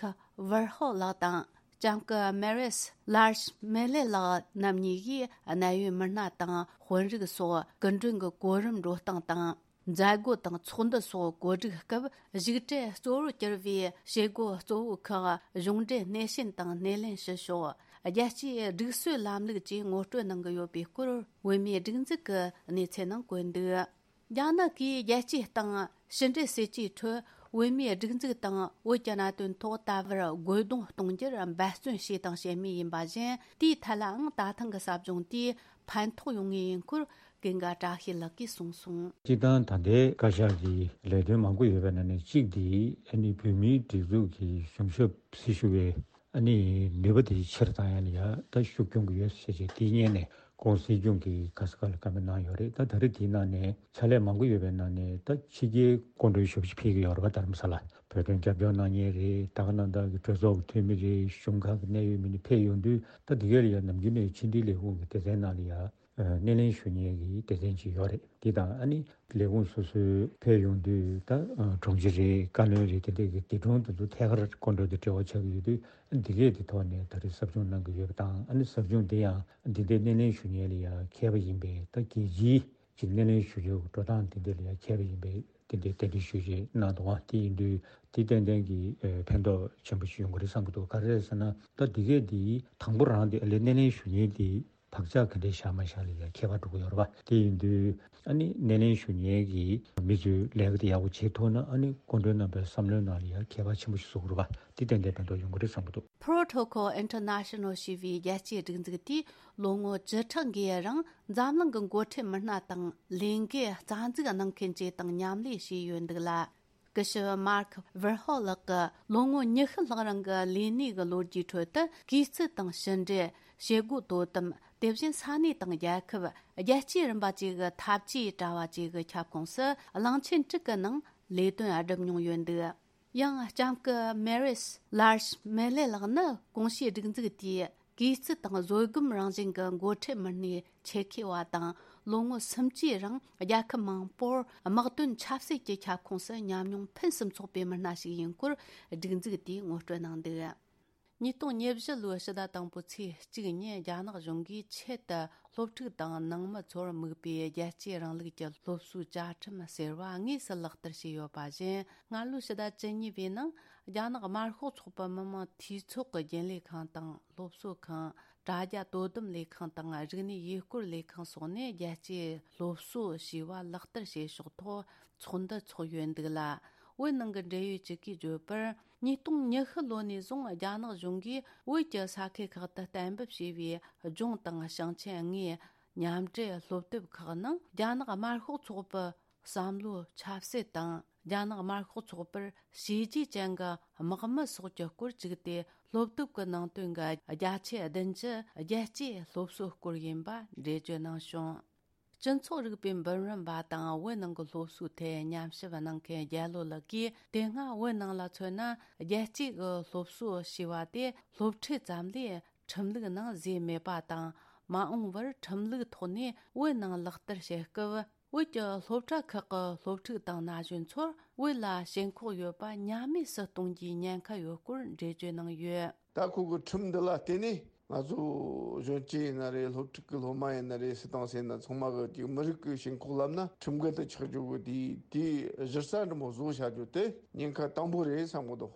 Warhol ལགས་དང་། ལྕམ་སྐུ་Maris Large་མེ་ལེ་ལགས་རྣམ་གཉིས་ཀྱིས་གནད་ཡོད་མི་སྣ་དང་དཔོན་རིགས་སོགས་སྐུ་མགྲོན་གྱི་གོ་རིམ་འགྲོ་སྟངས་དང་། མཛད་སྒོ་དང་ཚོགས་འདུ་སོགས་གོ་སྒྲིག་སྐབས་བཞུགས་གྲལ་གཙོ་བོར་གྱུར་བའི་བྱེད་སྒོ་གཙོ་བོ་ཁག་གཞུང་འབྲེལ་སྣེ་ཤན་དང་སྣེ་ལེན་ཞུ་ཕྱོགས། རྒྱལ་སྤྱིའི་སྒྲིག་སྲོལ་ལམ་ལུགས་བཅས་ངོ་སྤྲོད་གནང་གི་ཡོད་པའི་སྐོར་བོད་མིའི་སྒྲིག་འཛུགས་ཀྱི་གནས་ཚུལ་ནང་བཀོད་འདུག་རྒྱ་ནག་གིས་རྒྱལ་སྤྱིའི་སྟེང་ཕྱི་འབྲེལ་སྲིད་ཇུས་ཁྲོད་བོད་མིའི་སྒྲིག་འཛུགས་དང་བོད་ཀྱི་གནད་དོན་ཐོག་ད་བར་རྒོལ་རྡུང་གཏོང་རྒྱུར་འབད་བརྩོན་བྱས་དང་བྱེད་མུས་ཡིན་པ་བཞིན། དེའི་ཐད་ལའང་ད་ཐེངས་ཀྱི་ཟབ་སྦྱོང་དེས་ཕན་ཐོགས་ཡོང་ངེས་ཡིན་སྐོར་ཀུན་དགའ་བཀྲ་ཤིས་ལགས་ཀྱིས་གསུངས་སོང་། སྤྱིར་བཏང་ད་ལྟའི་བཀའ་ཤག་གི་ལས་དོན་མང་པོ་ཡོད་པའི་ནང་ནས་གཅིག་དེ་ཨ་ནི་བོད་མིའི་སྒྲིག་འཛུགས་ཀྱི་གཞུང་ཞབས་སྲི་ཞུ་བའི་ཨ་ནི་ནུས་པ་དེ་ཆེར་བཏང་ཡ་ལ་ཡ་ད་ཤུགས་སྐྱོན་གྱི་ཡོད་ཟེར་བྱས་དེའི་སྔོན་ནས་༸གོང་ས་སྲིད་སྐྱོང་གིས་ག་ས་ག་ལ་བཀའ་མོལ་གནང་ཡོད་རེད། ད་ད་རེས་དེའི་ནང་ནས་ཕྱག་ལས་མང་པོ་ཡོད་པའི་ནང་ནས་ད་ཕྱི་རྒྱལ་སྐུ་མགྲོན་ཞེ་པོ་ཅིག་ཕེབས་ཀྱི་ཡོད་རེད་པ། རྡ་རམ་ས་ལ་བོད་དོན་རྒྱབ་སྐྱོར་གནང་མཁན་རེད། ད་ག་ནང་ལྟར་གྱི་གྲོས་ཚོགས་ཀྱི་འཐུས་མི་རེད། གཞུང་ཁག་གི་གནད་ཡོད་མི་སྣ་ཕེབས་ཡོང་དུས། ད་འདི་གས་ལ་ཡ་ནམ་རྒྱུན་ནས་ཕྱི་འབྲེལ་ལས་ཁུངས་ཀྱི་སྡེ་ཚན་ནང་ལ་ཡ་སྣེ་ལེན་ཞུ་མཁན་གྱི་སྡེ་ཚན་ཅིག་ཡོད་རེད། འདི་དང་ཨ་ནི་ལས་ཁུངས་སོ་སོའི་ཕེབས་ཡོང་དུས། ད་དྲུང་ཆེ་རེད། བཀའ་བློན་རེད། དེ་འདྲས་ཀྱི་སྡེ་དྲུང་དེ་ཚོ་ཐད་ཀར་སྐུ་མགྲོན་དང་འབྲེལ་བ་ཆགས་ཀྱི་ཡོད་དུས། འདི་གས་དེ་ཐོག་ནས་ད་རེས་ཟབ་སྦྱོང་གནང་གི་ཡོད་པ་དང་། ཨ་ནི་ཟབ་སྦྱོང་དེ་ཡང་འདི་འདྲའི་སྣེ་ལེན་ཞུ་མཁན་ལ་ཡང་མཁས་པ་ཡིན་པའི་ད་རྒྱལ་སྤྱིའི་ ཅིག་སྣེ་ལེན་ཞུ་རྒྱུ་འགྲོ་སྟངས་དེ་འདྲ་ལ་ཡང་མཁས་པ་ཡིན་པས་དེ་འདྲའི་རྟེན་འབྲེལ་ཞུ་རྒྱུ་གནང་འདུག་པ། དེ་ཡིན་དུས་དེ་ཏན་ཏན་གྱི་ཨ་ཕན་ཐོགས་ཆེན་པོ་ཞིག་ཡོང་གི་རེད་བསམ་གྱི་འདུག་ག་རེ་རེད་ཟེར་ན། ད་འདི་གས་འདི་དང་པོ་རང་དེ་ཨ་ལས་སྣེ་ལེན་ཞུ་མཁན་དེ་བག་ཆགས་ག་འདྲས་བཞག་མ་བཞག་ལ་ཡང་ཁྱད་པར་འགྲོ་གི་ཡོད་རེད་པ། དེ་ཡིན་དུས་ཨ་ནི་སྣེ་ལེན་ཞུ་མཁན་གྱི་མི་ཚོས་ལས་ཀ་དེ་ཡག་པོ་བྱེད་ཐུབ་ན། ཨ་ནི་སྐུ་མགྲོན་རྣམ་པའི་བསམ་བློའི་ནང་ལ་ཡང་ཁྱད་པར་ཆེན་པོ་ཞིག་བཟོ་གི་རེད་པ། དེ་ཏན་ཏན་ཕན་ཐོགས་ཡོང་གི་རེད་བསམ་གྱི་འདུག Protocol International ཞེས་པའི་རྒྱལ་སྤྱིའི་སྒྲིག་འཛུགས་དེས་ལོ་ངོ་བཅུ་ཕྲག་འགའི་རིང་འཛམ་གླིང་གི་འགོ་ཁྲིད་མི་སྣ་དང་ལས་འགུལ་རྩ་འཛུགས་གནང་མཁན་བཅས་དང་མཉམ་ལས་བྱས་ཡོད་འདུག་ལ། སྐུ་ཞབས་མཱརྐ་ཝར་ཧོ་ལགས་ཀྱི་ལོ་ངོ་ཉི་ཤུ་ལྷག་རིང་གི་ལས་གནས་ཀྱི་ལོ་རྒྱུས་ཁྲོད་དུ། གུས་བརྩི་དང་ཕྱི་འབྲེལ། བྱེད་སྒོ་དོ་དམ། དེ་བཞིན་ས་གནས་དང་རྒྱལ་ཁབ། རྒྱལ་སྤྱིའི་རིམ་པ་བཅས་ཀྱི་འཐབ་ཇུས་དྲ་བ་བཅས་ཀྱི་ཁྱབ་ཁོངས་སུ་གླིང་ཆེན་དྲུག་གི་ནང་ལས་དོན་བསྒྲུབས་མྱོང་ཡོད་འདུག་ཡང་ལྕམ་སྐུ་མེ་རིས་ལར་ཤི་མེ་ལེ་ལགས་ནི་གོང་ཞུས་སྒྲིག་འཛུགས་དེའི་གུས་བརྩི་དང་བཟོད་སྒོམ་རང་བཞིན་གྱི་འགོ་ཁྲིད་མི་སྣའི་ཆེད་མཁས་པ་དང་། ལོ་ངོ་སུམ་ཅུའི་རིང་རྒྱལ་ཁབ་མང་པོར་དམག་དོན་ཆབ་སྲིད་ཀྱི་ཁྱབ་ཁོངས་སུ་ཉམས་མྱོང་ཕུན་སུམ་ཚོགས་པའི་མི་སྣ་ཞིག་ཡིན་སྐོར་སྒྲིག་འཛུགས་དེས་ངོ་སྤྲོད་གནང་འདུག་ཉིས་སྟོང་ཉེར་བཞི་ལོའི་ཕྱི་ཟླ་དང་པོའི་ཚེས་གཅིག་ཉིན་རྒྱ་ནག་གཞུང་གིས་ཆེད་དུ་སློབ་ཕྲུག་དང་ནང་མི་ཚོར་དམིགས་པའི་རྒྱལ་གཅེས་རིང་ལུགས་ཀྱི་སློབ་གསོའི་བཅའ་ཁྲིམས་ཟེར་བ་དངོས་སུ་ལག་བསྟར་བྱས་ཡོད་པ་བཞིན། སྔ་ལོའི་ཕྱི་ཟླ་བཅུ་གཉིས་པའི་ནང་རྒྱ་ནག་དམར་ཤོག་ཚོགས་པའི་མི་དམངས་འཐུས་ཚོགས་ཀྱི་རྒྱུན་ལས་ཁང་དང་སློབ་གསོ་ཁང་། དྲ་རྒྱ་དོ་དམ་ལས་ཁང་དང་རིག་གནས་ཡུལ་སྐོར་ལས་ཁང་སོགས་ནས་རྒྱལ་གཅེས་སློབ་གསོ་ཞེས་པ་ལག་བསྟར་བྱེད་ཕྱོགས་ཐོག་ཚོགས་འདུ་ཚོགས་ཡོད་འདུག་ལ། བོད་ནང་གི་འབྲེལ་ཡོད་ཅིག་གིས་བརྗོད་པར། ཉིས་སྟོང་ཉི་ཤུ་ལོ་ནས་བཟུང་རྒྱ་ནག་གཞུང་གིས་བོད་ཀྱི་ས་ཁུལ་ཁག་ཏུ་གཏན་འབེབས་བྱས་པའི་ལྗོངས་དང་ཞིང་ཆེན་ལྔའི་མཉམ་འབྲེལ་སློབ་དེབ་ཁག་ནང་རྒྱ་ནག་དམར་ཤོག་ཚོགས་པའི་བསམ་བློ་ཆབ་སྲིད་དང་། རྒྱ་ནག་དམར་ཤོག་ཚོགས་པར་བྱས་རྗེས་ཅན་གྱི་དམག་མི་སོགས་ཀྱི་སྐོར་བཅུག་སྟེ། སློབ་དེབ་ཀྱི་ནང་དོན་གྱི་བརྒྱ་ཆ་བདུན་ཅུ་རྒྱལ་གཅེས་སློབ་གསོའི་སྐོར་ཡིན་པ་འགྲེལ་བརྗོད་གནང་བྱུང་། སྤྱི་ཚོགས་རིག་པའི་འབུམ་རམས་པ་དང་བོད་ནང་གི་སློབ་གསོའི་ཐད་ཉམས་ཞིབ་གནང་མཁན་རྒྱལ་ལོ་ལགས་ཀྱིས། དེ་སྔ་བོད་ནང་ལ་མཚོན་ན། རྒྱལ་གཅེས་ཀྱི་སློབ་གསོ་ཞེས་པ་དེ་སློབ་ཁྲིད་ཙམ་ལས་ཁྲིམས་ལུགས་ནང་བཟོས་མེད་པ་དང་། མ་འོངས་པར་ཁྲིམས་ལུགས་ཐོག་ནས་བོད་ནང་ལག་བསྟར་བྱེད་སྐབས། བོད་ཀྱི་སློབ་གྲྭ་ཁག་གི་སློབ་ཕྲུག་དང་ན་གཞོན་ཚོར་བོད་ལ་ཞེན་ཁོག་ཡོད་པ་ཉམས་དམས་སུ་གཏོང་རྒྱུའི་ཉེན་ཁ་ཡོད་སྐོར་འགྲེལ་བརྗོད་གནང་ཡོད། ད་ཁོ་གི་ཁྲིམས་འདི་ལ་བརྟེན་ནས་ང་ཚོ་གཞོན་སྐྱེས་ཡིན་ན་རེད། སློབ་ཕྲུག་གི་སློབ་མ་ཡིན་ན་རེད། སུ་དང་སུ་ཡིན་ན་ཚང་མ་གི་ཅིག་མི་རིགས་ཀྱི་ཞེན་ཁོག་ལབ་ན་ཁྲིམས་འགལ་དུ་ཆགས་རྒྱུ་གི་དེའི་དེའི་གཞི་རྩ་འདྲ་མོ་བཟོ་བྱ་རྒྱུ་དེ་ཉེན་ཁ་དང་པོ་རེད་བསམ་གི་འདུག་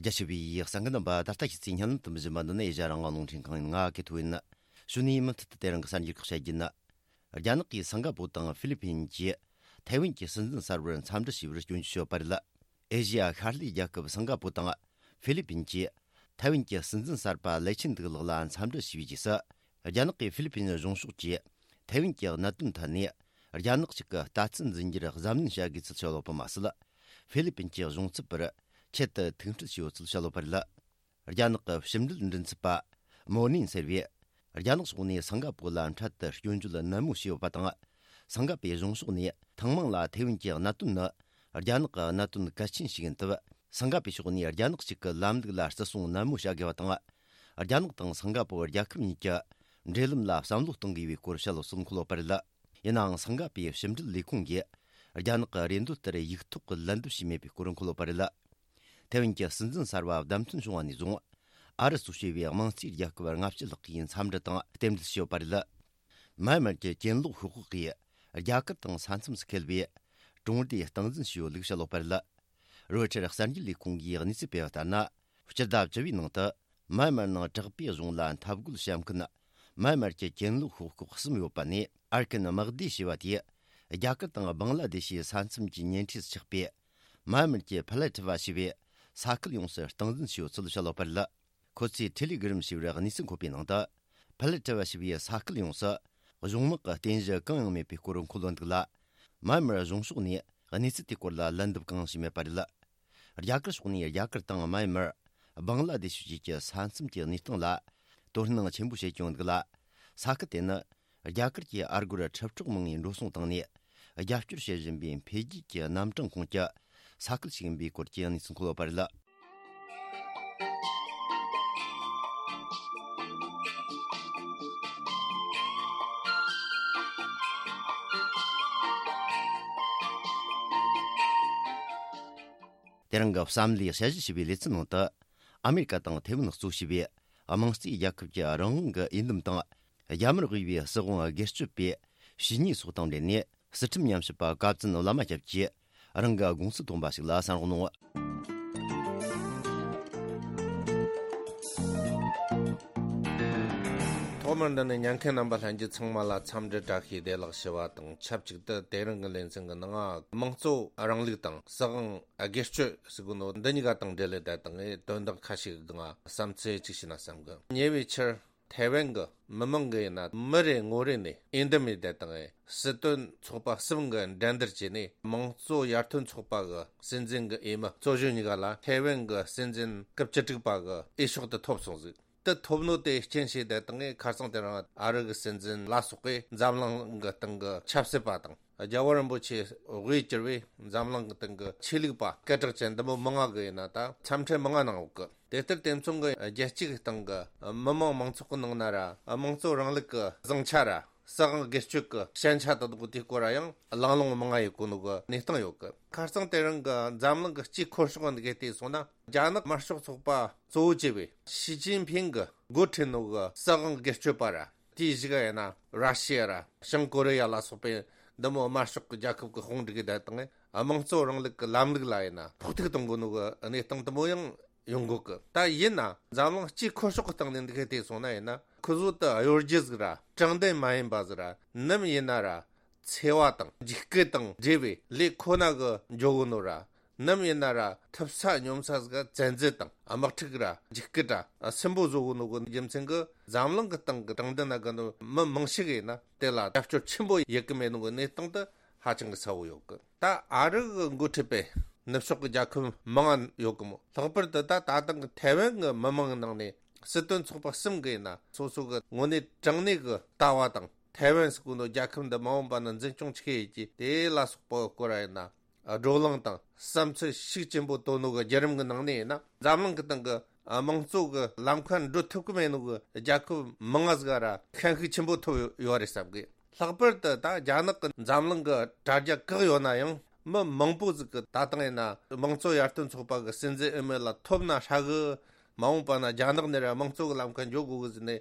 རྒྱ་ཆེ་བའི་གསན་མཁན་རྣམ་པ། ད་ལྟ་ཁྱེད་ཚོས་སྙན་ལམ་དུ་འབུལ་བཞིན་པ་འདི་ནི་ཨེ་ཤ་ཡ་རང་དབང་རླུང་འཕྲིན་ཁང་ཡིན། ང་གི་ཐུ་ཡིན། གཞུག་ནས་མུ་མཐུད་དུ་དེ་རིང་གི་གསར་འགྱུར་ཁག་བཤད་རྒྱུ་ཡིན། རྒྱ་ནག་གིས་སིང་ག་པོ་དང་ཧྥི་ལི་ཕིན་གྱིས་ཐའེ་ཝན་གྱི་སྲིད་འཛིན་གསར་པར་འཚམས་འདྲི་ཞུས་པར་སྐྱོན་བརྗོད་བྱས་ཡོད་པ་རེད། ཨེ་ཤེ་ཡ་ཤར་ལྷོའི་རྒྱལ་ཁབ་སིང་ག་པོ་དང་ཧྥི་ལི་ཕིན་གྱིས་ཐའེ་ཝན་གྱི་སྲིད་འཛིན་གསར་པ་ལེ་ཆིན་ཏུའུ་ལགས་ལ་འཚམས་འདྲི་ཞུས་པའི་རྗེས་སུ། རྒྱ་ནག་གིས་ཧྥི་ལི་ཕིན་གཞུང་ཕྱོགས་ཀྱིས་ཐའེ་ཝན་གྱི་གནད་དོན་ཐད་ནས་རྒྱ་ནག་ཞིག་གི་ལྟ་ཚུལ་འཛིན་རྒྱུར་གཟབ་ནན་བྱ་དགོས་ཚུལ་བཤད་ཡོད་པ་མ་ཟད། ཧྥི་ལི་ཕིན་གྱི་གཞུང་ཚབ་པར་ཆེད་དུ་ཐུག་འཕྲད་བྱས་ཡོད་ཚུལ་བཤད་ཡོད་པ་རེད། རྒྱ་ནག་གི་ཕྱི་འབྲེལ་མགྲིན་ཚབ་པ་མོ་ནིན་ཟེར་བས། རྒྱ་ནག་ཕྱོགས་ནས་སིང་ག་པོ་ལ་འཕྲལ་དུ་སྐྱོན་བརྗོད་ནན་མོ་བྱས་ཡོད་པ་དང་། སིང་ག་པོའི་གཞུང་ཕྱོགས་ནས་ཐེངས་མང་ལ་ཐའེ་ཝན་གྱི་གནད་དོན་ནི་རྒྱ་ནག་གི་གནད་དོན་གལ་ཆེན་ཞིག་ཡིན་སྟབས། སིང་ག་པོའི་ཕྱོགས་ནས་རྒྱ་ནག་གཅིག་གི་ལམ་ལུགས་ལ་བརྩི་སྲུང་ནན་མོ་བྱ་དགོས་པ་དང་། རྒྱ་ནག་དང་སིང་ག་པོ་རྒྱལ་ཁབ་གཉིས་ཀྱི་འབྲེལ་ལམ་ལ་བསམ་བློ་གཏོང་དགོས་པའི་སྐོར་བཤད་ཡོད་ཚུལ་འཁོད་ཡོད་པ་རེད། ཡིན་ནའང་སིང་ག་པོའི་ཕྱི་འབྲེལ་ལས་ཁུངས་ཀྱིས་རྒྱ་ནག་གི་རེ་འདུན་ལྟར་ཡིག་ཐོག་གི་ལན་འདེབས་བྱས་མེད་པའི་སྐོར་འཁོད་ཡོད་པ་རེད། ཐའེ་ཝན་གྱི་སྲིད་འཛིན་གསར་པ་བདམས་ཐོན་བྱུང་བ་ནས་བཟུང་། ཨ་རི་གཙོས་བྱས་པའི་དམངས་གཙོའི་རྒྱལ་ཁབ་ལྔ་བཅུ་ལྷག་གིས་འཚམས་འདྲི་དང་རྟེན་འབྲེལ་ཞུས་ཡོད་པ་རེད། མཱ་མར་གྱི་གྱེན་ལོག་ཤོག་ཁག་གིས་རྒྱ་གར་དང་ས་མཚམས་སུ་འཁེལ་བའི་གྲོང་སྡེ་སྟངས་འཛིན་བྱས་ཡོད་ལུགས་བཤད་ཡོད་པ་རེད། རོའི་ཊར་གསར་འགྱུར་ལས་ཁུངས་ཀྱིས་གནས་ཚུལ་སྤེལ་བ་ལྟར་ན། སྤྱི་ཟླ་བཅུ་པའི་ནང་དུ་མཱ་མར་ནང་དྲག་པོའི་གཞུང་ལ་འཐབ་རྒོལ་བྱེད་མཁན་མཱ་མར་གྱི་གྱེན་ལོག་ཤོག་ཁག་གསུམ་ཡོད་པ་ནས། ཨར་ཁན་དམག་སྡེ་ཞེས་པ་དེས་རྒྱ་གར་དང་བང་ལ་དེ་ཤི་ས་མཚམས་ཀྱི་ཉེ་འཁྲིས་སུ་ཆགས་པའི་མཱ་མར་གྱི་ཕ་ལ་ཁྲི་བ་ཞེས་པའི་ས་ཁུལ་ཡོངས་སུ་སྟངས་འཛིན་བྱས་ཡོད་ཚུལ་བཤད་ཡོད་པ་རེད། ཁོ་ཚོས་ཊེ་ལི་གྷི་རམ་ཞེས་པར་གནས་ཚུལ་འཁོད་པའི་ནང་དུ། ཕ་ལ་ཁྲི་བ་ཞེས་པའི་ས་ཁུལ་ཡོངས་སུ་གཞུང་དམག་གི་རྟེན་གཞི་གང་ཡང་མེད་པའི་སྐོར་འཁོད་ཡོད་འདུག་ལ། མཱ་མར་གཞུང་ཕྱོགས་ནས་གནས་ཚུལ་དེའི་སྐོར་ལ་ལན་འདེབས་གང་ཡང་བྱས་མེད་པ་རེད། རྒྱ་གར་ཕྱོགས་ནས་རྒྱ་གར་དང་མཱ་མར། བང་ལ་དེ་ཤུ་བཅས་ཀྱི་ས་མཚམས་ཀྱི་གནས་སྟངས་ལ་དོ་སྣང་ཆེན་པོ་བྱེད་ཀྱི་ཡོད་འདུག་ལ། ས་ཁུལ་དེ་ནི་རྒྱ་གར་གྱི་ཨ་སྒོར་ཁྲི་དྲུག་མང་བའི་འགྲོ་སོང་བཏང་ནས་རྒྱབ་སྐྱོར་བྱེད་བཞིན་པའི་འཕེལ་རྒྱས་ཀྱི་རྣམ་གྲངས་ཁོངས་ཀྱི་ས་ཁུལ་ཞིག་ཡིན་པའི་སྐོར་གྱི་གནས་ཚུལ་འཁོད་ཡོད་པ་རེད། དེ་རིང་གི་བསམ་བློའི་དཔྱད་ཞིབ་བྱས་པའི་ལེ་ཚན་ནང་དུ། ཨ་མེ་རི་ཀ་དང་ཐེ་ཝན་གཙོ་བྱས་པའི་དམངས་གཙོའི་རྒྱལ་ཁབ་ཀྱི་རང་དབང་གི་འོས་འདེམས་དང་། རྒྱ་མིར་དབུས་པའི་སྲིད་དབང་སྒེར་གཅོད་པའི་བྱས་ཉེས་སོགས་དང་འབྲེལ་ནས། སྲིད་ཁྲིམས་ཉམས་ཞིབ་པ་བཀའ་བཙུན་བླ་མ་སྐྱབས་ཀྱིས་རང་གི་དགོངས་ཚུལ་བཏོན་པ་ཞིག་ལ་གསན་རོགས་གནང་། ཐོག་མར་འདི་ནས་ཉན་མཁན་རྣམ་པ་ལྷན་རྒྱས་ཚང་མ་ལ་འཚམས་འདྲི་བཀྲ་ཤིས་བདེ་ལེགས་ཞུ་བ་དང་ཆབས་ཅིག་ཏུ། དེ་རིང་གི་ལེ་ཚན་གྱི་ནང་དམངས་གཙོ་རིང་ལུགས་དང་སྲིད་དབང་སྒེར་གཅོད་ཟེར་གོ་ནོ་འདི་གཉིས་ཀ་དང་འབྲེལ་ལེ་བསྡད་དང་དོན་དག་ཁ་ཤས་ཀྱི་སྒང་བསམ་ཚུལ་ཅིག་ཞུས་ན་བསམ་གི། ཉེ་བའི་ཆར་ཐའེ་ཝན་གྱི་མི་མང་གི་ཡིན་ན་མི་རེ་ངོ་རེ་ནས་འོས་འདེམས་ཡེ་བསྡད་དང་སྲིད་དོན་ཚོགས་པ་གསུམ་གྱི་འགྲན་བསྡུར་བྱས་ནས། དམངས་གཙོ་ཡར་ཐོན་ཚོགས་པ་གི་སྲིད་འཛིན་གྱི་འོས་མི་གཙོ་གཞོན་གཉིས་ཀ་ལ་ཐའེ་ཝན་གྱི་སྲིད་འཛིན་སྐབས་བཅུ་དྲུག་པ་གི་འོས་ཤོག་དེ་ཐོབ་སོང་ཟིག། དེ་ཐོབ་ནོ་དེ་རྐྱེན་བྱས་བསྡད་དང་ངས། ཁ་སང་དེ་རིང་ཨ་རི་གི་སྲིད་འཛིན་ལ་སོགས་པས་འཛམ་གླིང་གི་སྟེང་གི་ཆབ་སྲིད་པ་དང་། རྒྱལ་བ་རིན་པོ་ཆེ་དབུས་གྱུར་བའི་འཛམ་གླིང་གི་སྟེང་གི་ཆོས་ལུགས་པ་སྐད་གྲགས་ཅན་འདི་མོ་མང་ང་གི་ཡིན་ན་ད་འཚམས་འཕྲིན་མང་ང་གནང་ཡོད་གི། དེ་ལྟར་དེ་མཚུངས་གི་རྒྱལ་སྤྱི་གི་སྟེང་གི་མི་དམངས་མང་ཚོགས་གི་ནང་ན་ར་དམངས་གཙོ་རིང་ལུགས་གི་བཟང་ཆ་ར་སྲིད་དབང་སྒེར་གཅོད་གི་ཞན་ཆ་དེ་དག་དེའི་སྐོར་ར་ཡང་གླེང་སློང་མང་ང་ཡེ་གོ་ནོ་གི་གནས་སྟངས་ཡོད་གི། ཁ་སང་དེ་རིང་གི་འཛམ་གླིང་གི་སྤྱིའི་ཁོར་ཤོག་འདི་གའི་བལྟས་སོང་ན། རྒྱ་ནག་དམར་ཤོག་ཚོགས་པ་གཙོ་བོ་བྱས་པའི་ཞི་ཅིན་ཕིང་གི་འགོ་ཁྲིད་ནོ་གི་སྲིད་དབང་སྒེར་གཅོད་པ་ར། དེའི་གཞུག་ག་ཡིན་ན་ར་ཤི་ཡ་ར་བྱང་ཀོ་རི་ཡ་ལ་སོགས་པའི་འདི་མོ་དམར་ཤོག་གི་རྒྱལ་ཁབ་ཀྱི་དཔུང་སྒྲིག་གི་བསྡད་དང་དམངས་གཙོ་རིང་ལུགས་ཀྱི་ལམ་ལུགས་ལ་ཡིན་ན་ཕོག་ཐུག་གཏོང་དགོས་ནོ་གི་གནས་སྟངས་དེ་མོ་ཡང་ཡོང་གོ་གི། ད་ཡིན་ན་འཛམ་གླིང་སྤྱིའི་ཁོར་ཤོག་གི་སྟེང་ནས་འདི་གའི་བལྟས་སོང་ན་ཡིན་ན། ཁོ་ཚོ་དེ་གཡོ་སྒྱུ་ཟིག་ར་དྲང་བདེན་མ་ཡིན་པ་ཟིག་ར། ནམ་ཡིན་ན་ར་འཚེ་བ་དང་འཇིགས་སྐུལ་དང་འབྲེལ་བའི་ལས་ཁོ་ན་གི་འཇོག་གོ་ནོ་ར། ནམ་ཡིན་ན་ར་ཐུབ་ས་སྙོམས་ས་ཟིག་བཙན་འཛུལ་དང་དམག་འཁྲུག་ར་འཇིགས་སྐུལ་ར་སུན་པོ་བཟོ་གོ་ནོ་གི་རྒྱུ་མཚན་གི་འཛམ་གླིང་གི་སྟེང་གི་དྲང་བདེན་ན་གི་ནོ་མི་མང་ཤོས་གི་ཡིན་ན་དེ་ལ་རྒྱབ་སྐྱོར་ཆེན་པོ་ཡེ་གི་མེད་ནོ་གི་གནས་སྟངས་དེ་ཧ་ཅང་གི་གསལ་བོ་ཡོད་གི། ད་ཨ་རི་གི་འགོ་ཁྲིད་པའི་ནུབ་ཕྱོགས་གི་རྒྱལ་ཁབ་མང་ང་ཡོད་གི་མོ། ལྷག་པར་དུ་ད་ད་ཐེངས་གི་ཐའེ་ཝན་གི་མི་མང་གི་ནང་ནས་སྲིད་དོན་ཚོགས་པ་གསུམ་གི་ཡིན་ན་སོ་སོ་གི་དངོས་གནས་དྲང་གནས་གི་ལྟ་བ་དང་། ཐའེ་ཝན་ཟེར་གོ་ནོ་རྒྱལ་ཁབ་འདི་མ་འོངས་པ་ན་འཛིན་སྐྱོང་ཆི་གི་ཡེ་རྒྱུ་དེ་ལ་སོགས་པ་གི་སྐོར་ར་ཡིན་ན། བགྲོ་གླེང་དང་བསམ་ཚུལ་ཤུགས་ཆེན་པོ་བཏོན་ནོ་གི་བརྒྱུད་རིམ་གི་ནང་ནས་ཡིན་ན། འཛམ་གླིང་གི་སྟེང་གི་དམངས་གཙོ་གི་ལམ་ཁ་འགྲོ་ཐུབ་གི་མེད་ནོ་གི་རྒྱལ་ཁབ་མང་ང་ཟིག་ག་ར་ཤན་ཤུགས་ཆེན་པོ་ཐོབ་ཡོད་རེད་བསམ་གི། ལྷག་པར་དུ་ད་རྒྱ་ནག་གི་འཛམ་གླིང་གི་དྲ་རྒྱ་བཀག་ཡོད་ན་ཡང་། མི་མང་པོ་ཟིག་གི་ད་ཐེངས་ཡིན་ན་དམངས་གཙོ་ཡར་ཐོན་ཚོགས་པ་གི་སྲིད་འཛིན་འོས་མི་ལ་ཐོབ་ན་ཧྲ་གི། མ་འོངས་པ་ན་རྒྱ་ནག་ནས་ར་དམངས་གཙོ་གི་ལམ་ཁ་འགྱོ་དགོས་གི་ཟེར་ནས་